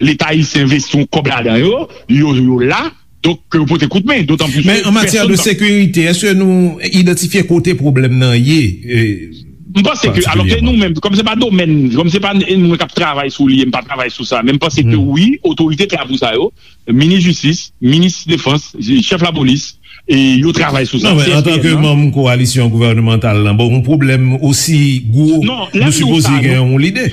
Leta ayisyen envesti yon kòb ladan yo, yo, yo la, donk, ke yo pote kout men, dotan plis Men ke an matyè de pèsonn pa sekirite, èske nou idantifye kote pwoblèm nan ye? E, M panse ke, alò ke patikilyaman. Nou menm, kòm se pa domèn, kòm se pa n- moun k ap travay sou li, e m pa travay sou sa, men m panse ke wi, otorite k la pou sa yo, minis jistis, minis defans, chèf lapolis, e yo travay sou sa. Non, men an tan ke manm kowalisyon gouvènemantal lan, bon, yon pwoblèm osi gwo, non, lè nou m di w sipoze sa, gen yon lide.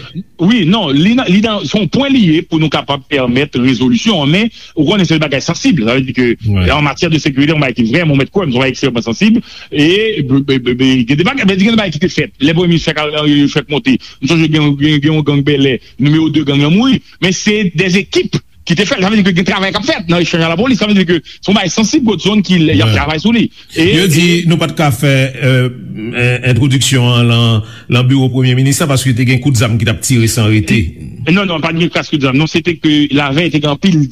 Wi, non, li nan, li nan, se yon pwen li ye pou nou kapab pèmèt rezolisyon an, men ou konnen se yon bagay sansib. Sa vle di ke an matyè de sekirite, yon bagay ki vrèman, ou mèt kwè m, se yon bagay ekstrèmman sansib. E, be- be- be- be- gen de bagay, men gen de bagay ki te fèt. Lè premye minis fèk, fèk monte, m sonje gen, gen, gen yon gang bèlè, nimewo de gang lan mouri. Men se de ekip ki te fè l. Sa vle di ke gen travay k ap fèt nan echanj a lapolis. Sa vle di ke se yon bagay sansib Godson ki y ap travay sou li. E, yo di e nou pa t ka fè, euh, en- entwodiksyon an lan, lan biwo premye minis la paske te gen kout zam ki t ap tire san rete. Non, non, pa t gen kras kout zam. Non, se te ke lavèy te gen anpil,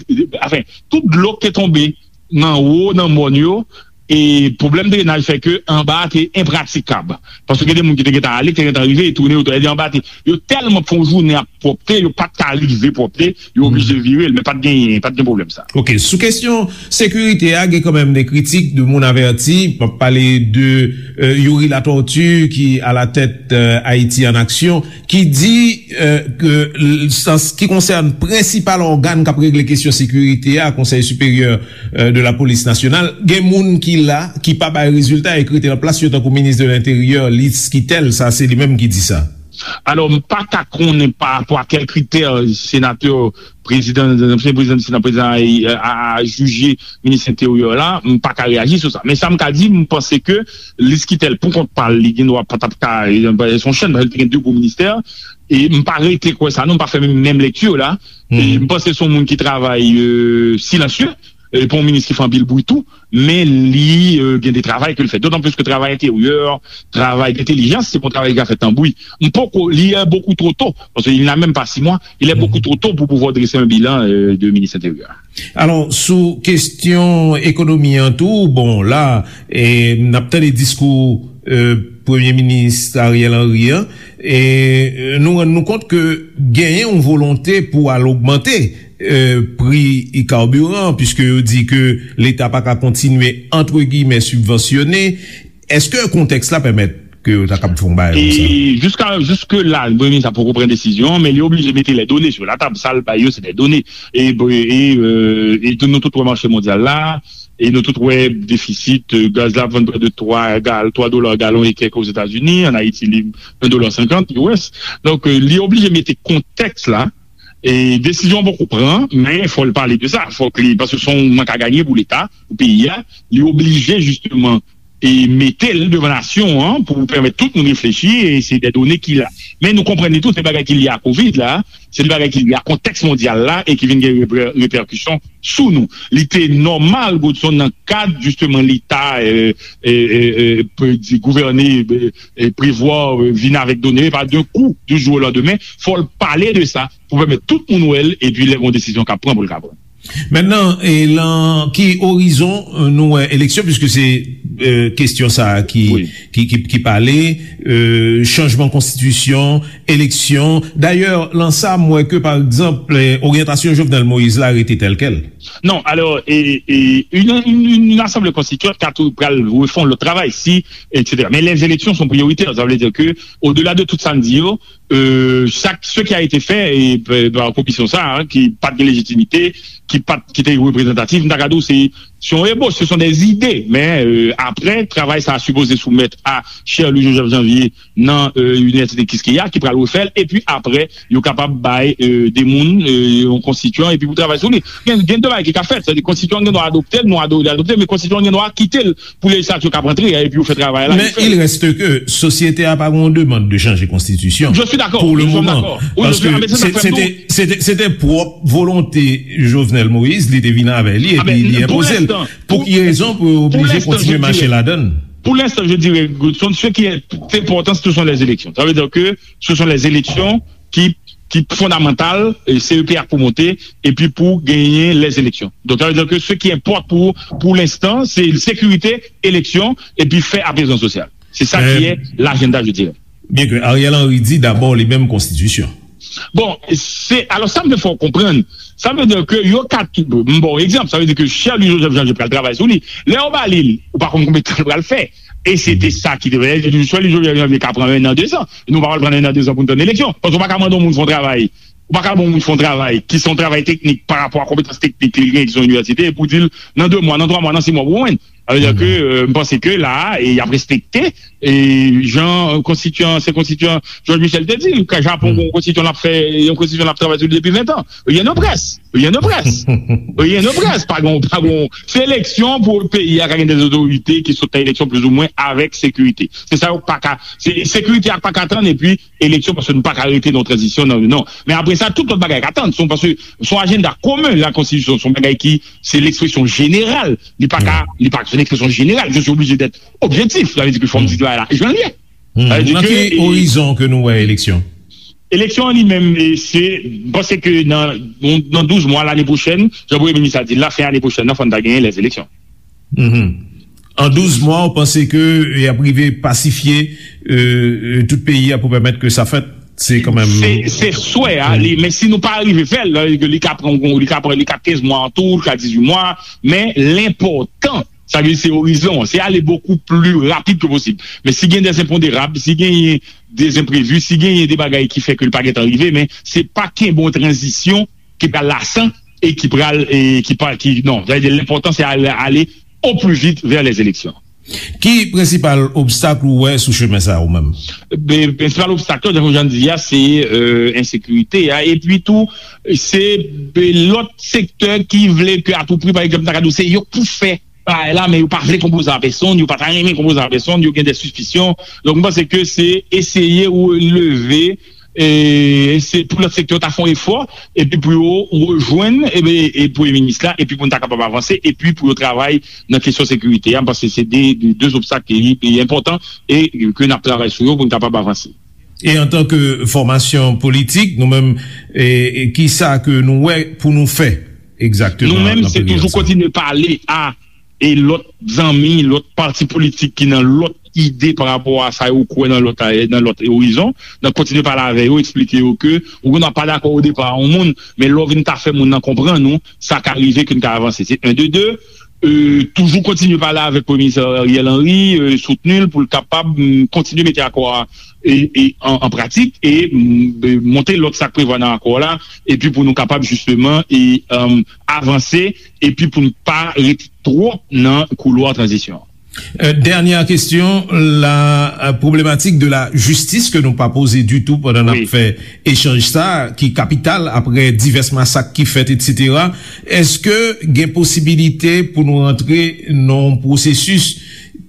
anfen, tout dlo k te tonbe nan wo, nan mòn yo, e pwoblèm drenaj fè ke anba a te enpratikab. Paske gen de moun ki te gentan ale, ki te gentan rive, e tounen, yo tou- e anba a te, yo tèlman fè yon jounen ap pwòpte, yo pa t ka rive pwòpte, yo oblije vire l, men pa t genyen, pa t gen pwoblèm sa. Ok, sou kesyon sekirite a, gen kanmenm de kritik, de moun avèti. M ap pale de, euh, Youri Latortue, ki a la tèt, euh, Ayiti an Aksyon, ki di, euh, ke l- an s- ki konsène prensipal ògàn k ap regle kesyon sekirite a, Konsèy Siperyè, euh, de la Polis Nasyonal, gen moun ki la, ki pa bay rezilta e k rete nan plas yo, tankou minis de lenteryè, Liz Quitel, sa se li menm ki di sa. Alò, m pa ka konnen pa rapò a kèl kritè senatè, prezidan, ansyen prezidan di Sena, prezidan a, a, a jije minis enteryè la, m pa ka reyaji sou sa. Men sa m ka di, m panse ke Liz Quitel, pou kont pa l, li gen dwa pa t ap ka, se yon chèn, paske li te gen de gwo ministè, e m pa rete kwè sa, non, m pa fè menm, menm lekti la. E m panse se yon moun ki travay, euh, silansye, e pa yon minis ki fè anpil bri tou, men li, euh, gen de travay ke l fè. Dotan plis ke travay enteryè, travay dentèlijans, se pa yon travay ki ka fèt nan bri. M poko, li è bokou two to, paske li la menm pa sis mwa, il est beaucoup trop tôt pour pouvoir dresser un bilan, euh, de minis enteryè. Alò, sou kesyon ekonomi an tou, bon, la, e, n ap tande diskou, e, Premye Minis Ariel Henry an, e, e, nou rann nou kont ke genyen yon volonte pou al ogmante, e, pri kabiran, piske yo di ke Leta pa ka kontinye, antre giyimè, sibvansyone. Èske kontèks la pèmèt ke yo ta kab fè yon bagay konsa? E jiska, jiske la, Premye Minis la poko pran desizyon, men li oblije mete les données sur la table. Sa l bay yo, se des données. E, e, e, e tou, nou tout wè mache mondyal la, e nou tout wè defisit, e, gaz la vann prè de twa gal, twa dola galon e kèk Ozetazini, an Ayiti, li en dola senkant U S. Donk, e, li oblije mete kontèks la, e desizyon an poko pran, men fò l pale de sa, fòk li, paske se yon mank a ganye pou Leta, pou peyi a, li oblije jisteman e mete l devan nasyon an pou pèmèt tout moun reflechi, e se de done ki la. Men nou konprann li tou, se bagay ki lye a kovid la, se de bagay ki lye a kontèks mondyal la e ki vin gen repè- repèkisyon sou nou. Li te nòmal, Godson, nan kad jisteman Leta, e, e, e, e, pe di gouvène, e, e, prevwa, e, vin avèk done, e pa d'un coup, du jour au lendemain, fò l pale de sa pou pèmèt tout moun wè l, epi lè gen yon desizyon k ap pran pou l ka pran. Mentnan, e, lan ki orizon, e, nou wè eleksyon, piske se, e, kesyon sa a ki, ki, ki, ki pale, e, chanjman konstitisyon, eleksyon. Dayè, lan sa, m wè ke, pa egzanp, e, oryantasyon Jovenel Moïse la rete tèl kèl. Non, alò, e, e, une, une, une assemblée constituante ka tou pral refè yon lòt travay, si, et cetera. Men les élections sont prioritaires, sa vle di ke, au-delà de tout sa n di yo, euh, chaque, ce qui a été fait, e, pa komisyon sa a, ki pa t gen lejitimite, ki pa t, ki te reprezantatif, m ta ka di w se, se yon ebòch, ce sont des idées, men, euh, apre, travay sa a sipoze soumèt a Cherlus Joseph Janvier nan, euh, Inivèsite Quisqueya, ki pral refè l, epi apre, yo kapab bay, euh, de moun, euh, yon konstityan, epi pou travay sou li. Gen, gen de bagay ki ka fèt, sètadi konstityan an gen dwa adopte l, nou ado-, adopte l, men konstityan an gen dwa kite l pou lejislatif yo kab antre, epi yo fè travay la. Men il reste que sosyete a pa gen yon demann de chanje konstitisyon. Je suis d'accord. Pour le moment. Paske se te, se te, se te pwòp volonte Jovenel Moïse, li te vin avè li, epi li enpoze l. Pou ki rezon pou yo oblije kontinye mache ladan l? Pour l'instant, je dirais, Goodson, ce qui est important, ce sont les élections. Ça veut dire que ce sont les élections qui, qui fondamentales, et C E P A pour monter, et puis pour gagner les élections. Donc, ça veut dire que ce qui importe pour, pour l'instant, c'est sécurité, élection, et puis faire apaisement social. C'est ça qui est l'agenda, je dirais. Byen ke Ariel Henry di dabò li menm konstitisyon. Bon, se, alò sa m vle fè w konprann, sa vle di ke yo ka, m ba w egzanp, sa vle di ke Sherly Joseph Jean pral travay sou li. Lè yo ba li l, ou pa konn konbyen tan l pral fè. E se te sa ki te fè, Sherly Joseph Jean ka pran en an, de zan. Nou pa pral pran en an, de zan pou n tann eleksyon. Paske ou pa ka mande yon moun fè yon travay, ou pa ka mande yon moun fè yon travay ki se yon travay teknik pa rapò a konpetans teknik li genyen ki se yon inivèsite, epi w di l, nan de mwa, nan twa mwa, nan sis mwa, ou jwenn. Sa vle di ke, euh, m panse ke la a, e y ap respekte, e jan, euh, konstityan, ansyen konstityan George Michel te di, ke Japon gen yon konstityan l ap fè, yon konstityan l ap travay sou li depi ven tan. Rien ne presse. Rien ne presse. Rien ne presse. Pa gon, pa gon. Se eleksyon pou peyi a ka gen de otorite ki sot nan eleksyon plizoumwen avèk sekirite. Se sa yo pa ka, se, sekirite a pa ka tann, epi eleksyon, paske nou pa ka rete nan tranzisyon, non, non. Men apre sa, tout lòt bagay ka tann. Se yon, paske se yon ajanda komen, la konstitisyon, se yon bagay ki, se lekspresyon jeneral. Li pa ka, li pa, se yon ekspresyon jeneral. Je suis obligé d'être objectif. Sa vle di ke fò m di bagay la jan l ye. Sa vle di ke, e, orizon ke nou wè eleksyon? Eleksyon an li menm, e, se, m panse ke nan, nan douz mwa lane pwochèn, jan premye minis la di l la, fen ane pwochèn nan, fò n ta genyen lèzeleksyon. An douz mwa, ou panse ke y ap rive pasifye, euh, euh, tout peyi a pou pèmèt ke sa fèt? Se kanmenm. Se, se swè a, li, men si nou pa rive fè l, li ka pran, li ka pran, li ka kenz mwa an tou, li ka dizuit mwa, men lenpòtan, sa vle di se orizon an, se ale bokou pli rapid ke posib. Men si gen de enponderab, si genyen de enprevi, si genyen de bagay ki fè ke l pa gentan rive, men se pa kenbe yon tranzisyon ki pral lasan e ki pral, e ki pa, ki, non, sa vle di lenpòtan se ale, ale o pli vit vè lèzeleksyon. Ki prensipal obstak ou wè sou chemen sa a ou menm? Be, prensipal obstak yo, jan Jean di a, se, euh, ensekirite a. Epi tou, se, be, lòt sektè ki vle ke a tou pri, pa egzanp, ta ka di w se yo k pou fè bagay la, men yo pa vle konpoze a pèsonn, yo pa ta renmen konpoze a pèsonn, yo gen de sispisyon. Donk, m panse ke se eseye ou leve e se pou lòt sektè yo ta fè yon efò, epi pou yo rejwenn, e, e premye minis la, epi pou n ta kapab avanse, epi pou yo travay nan kesyon sekirite a, paske se de, de, de obstak ki, ki enpòtan e ke n ap travay sou yo pou n kapab avanse. E antanke fòmasyon politik, nou menm, e, e kisa ke nou wè pou nou fè egzakteman? Nou menm, se toujou kontinye pale a e lòt zanmi, lòt pati politik ki nan lòt ide pa rapò a sa yo kwè nan lòt, nan lòt orizon, nan kontinye pale avè yo, eksplike yo ke ou konn ap pa dakò o depa a yon moun, men lè w vin ta fè moun nan konprann ou, sa ka rive ke n ka avanse. Se en de de, euh, toujou kontinye pale avèk Premye Minis Ariel Henry, euh, soutni l pou l kapab, mm, kontinye mete akò a, e, e, an, an pratik e, mm, e, monte lòt sa k prevwa nan akò la, epi pou nou kapab jisteman e, um, avanse epi pou n pa rete twòp nan koulwa tranzisyon. Euh, dènyè kesyon, la, euh, pwoblematik de la jistis ke nou pa poze ditou pandan n ap fè echanj sa, ki kapital apre divès masak ki fèt, etsetera. Èske gen posibilite pou nou rantre nan yon pwosesis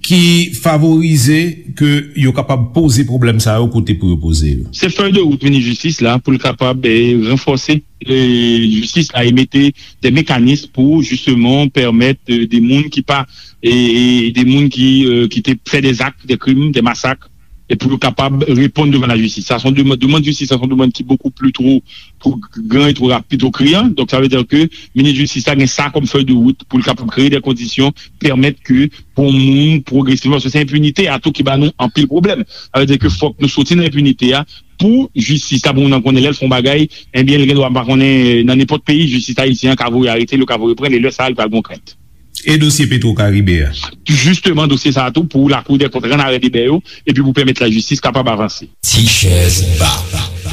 ki favorize ke yo kapab poze pwoblèm sa yo kote pou yo poze yo? Se fèy de wout minis jistis la pou l kapab, eh, ranfòse, eh, jistis la e mete de mekanis pou jisteman pèmèt, eh, de moun ki pa, eh, eh, de moun ki, eh, ki te fè de zak, de krim, de masak, e pou yo kapab reponn devan lajistis. Sa se yon demann, demann jistis, sa se yon demann ki bokou pli two, two gran e two rapid, two kriyan. Donk, sa vle di ke minis jistis la gen sa kòm fèy de wout pou l kapab kreye de kondisyon, pèmèt ke pou moun pwogresivman, paske se enpinite a tou ki ba nou anpil pwoblèm. Sa vle di ke fòk nou soti nan enpinite a pou jistis la, pou moun nan konnen lè l fè yon bagay, ebyen, l gen dwa pa konnen, nan nenpòt peyi, jistis ayisyen an ka voye arete l, yo ka voye pran l, e lè sa a, li pral gen yon krent. E dosye Petro Caribe a? Jisteman, dosye sa a tou, pou Lakou dè Kont rann arè deba yo, epi pou pèmèt lajistis kapab avanse. Ti chèz ba.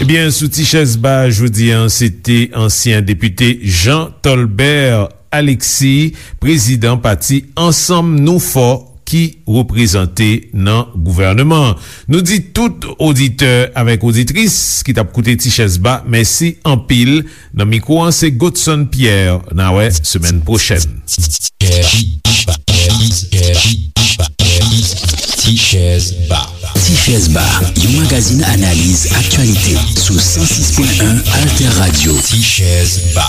Ebyen, sou Ti chèz ba, jodi a, se te ansyen depite Jean Tolbert Alexis, prezidan pati Ansanm Nou Fò, ki reprezante nan gouvèneman an. Nou di tout oditè avèk oditris ki t ap koute Ti chèz ba, mèsi anpil. Nan mikwo an, se Godson Pierre. N a wè semèn pwochèn. Ti chèz ba. Ti chèz ba, yon magazin analiz aktyalite sou san sis pwen en Alter Radio. Ti chèz ba.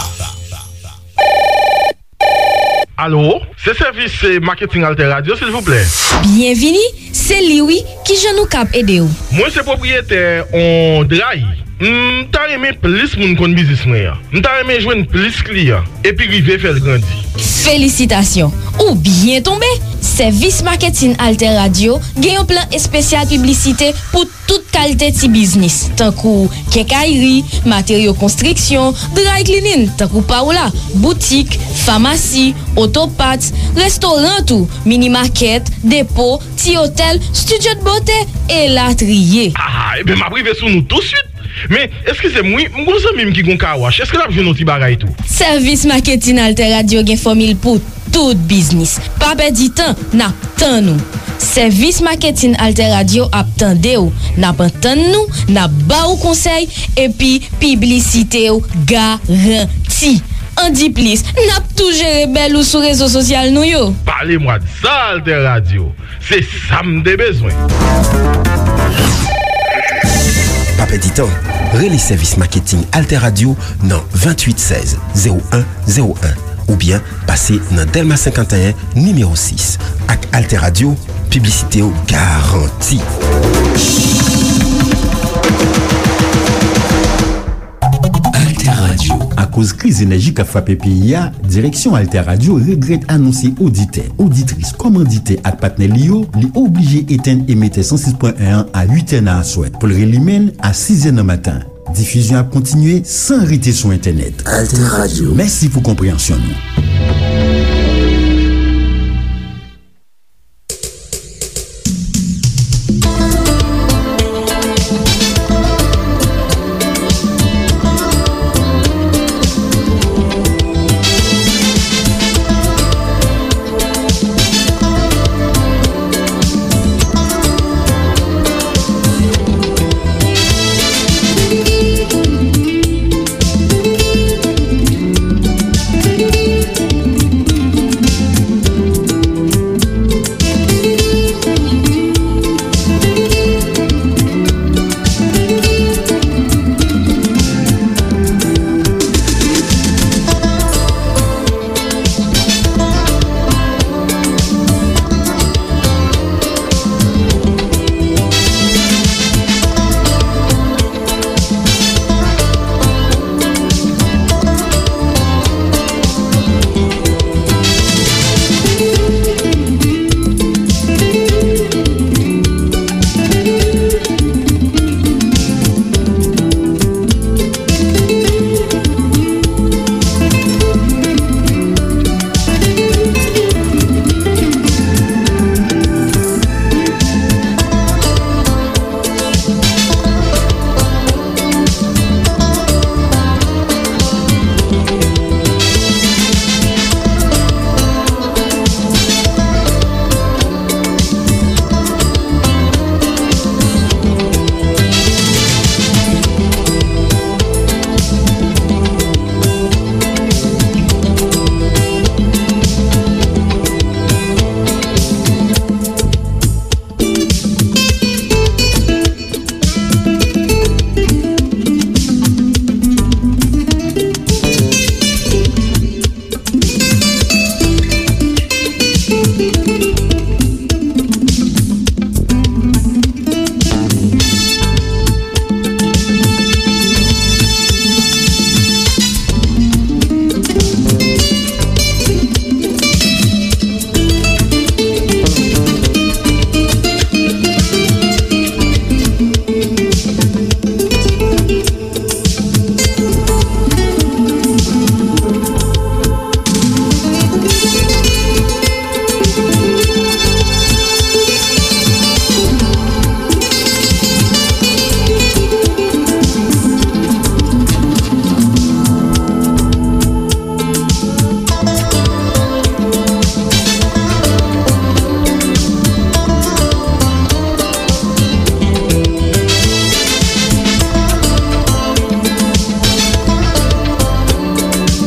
Alo, se sèvis, eh, maketing Alter Radio, silvouplè. Byenvini, se li wi, kijan nou kab ede w? Mwen se pwopriyetè on dray. M ta renmen plis moun konn biznis mwen an. M ta renmen jwenn plis kliyan, epi rive fè l grandi. Felisitasyon, ou byen tonbe! Sèvis maketing Alter Radio gen yon plan espesyal piblisite pou tout kalite ti biznis, tankou kenkayri, materyo konstriksyon, dry cleaning, tankou pa w la, boutik, famasi, oto parts, restoran tou, mini market, depo, ti otèl, studio de beauté, elatriye. Ah, ebyen, m ap rive sou nou touswit. Men, eskize m, wi, m gon zanmi m ki gon kawash. Èske l ap jwenn yon ti bagay tou? Sèvis maketing Alter Radio gen fòmil pou tout biznis. Pa pèdi tan, n ap tann ou. Sèvis maketing Alter Radio ap tande w, n ap antann nou, n ap ba w konsèy, epi piblisite w garanti. An di plis, n ap tou jere bèl ou sou rezo sosyal nou yo. Pale mwa de sa, Alter Radio. Se sa m te bezwen. Pa pèdi tan. Rele sèvis maketing Alter Radio nan venntuit sèz zewo en zewo en oubyen pase nan Dèlma senkanteyen, nimewo sis. Ak Alter Radio, piblisite w garanti. Alter Radio. Akoz kriz enèji k ap frape peyi a, direksyon Alter Radio regrèt anonse oditè, oditris, kòmanditè ak patnè li yo, li oblije etenn emetè san sis pwen en an a uit è nan aswè pou l relimen l a sis è nan maten. Difizyon ap kontinye san rete sou entènèt. Alter Radio. Mèsi pou konpreyansyon nou.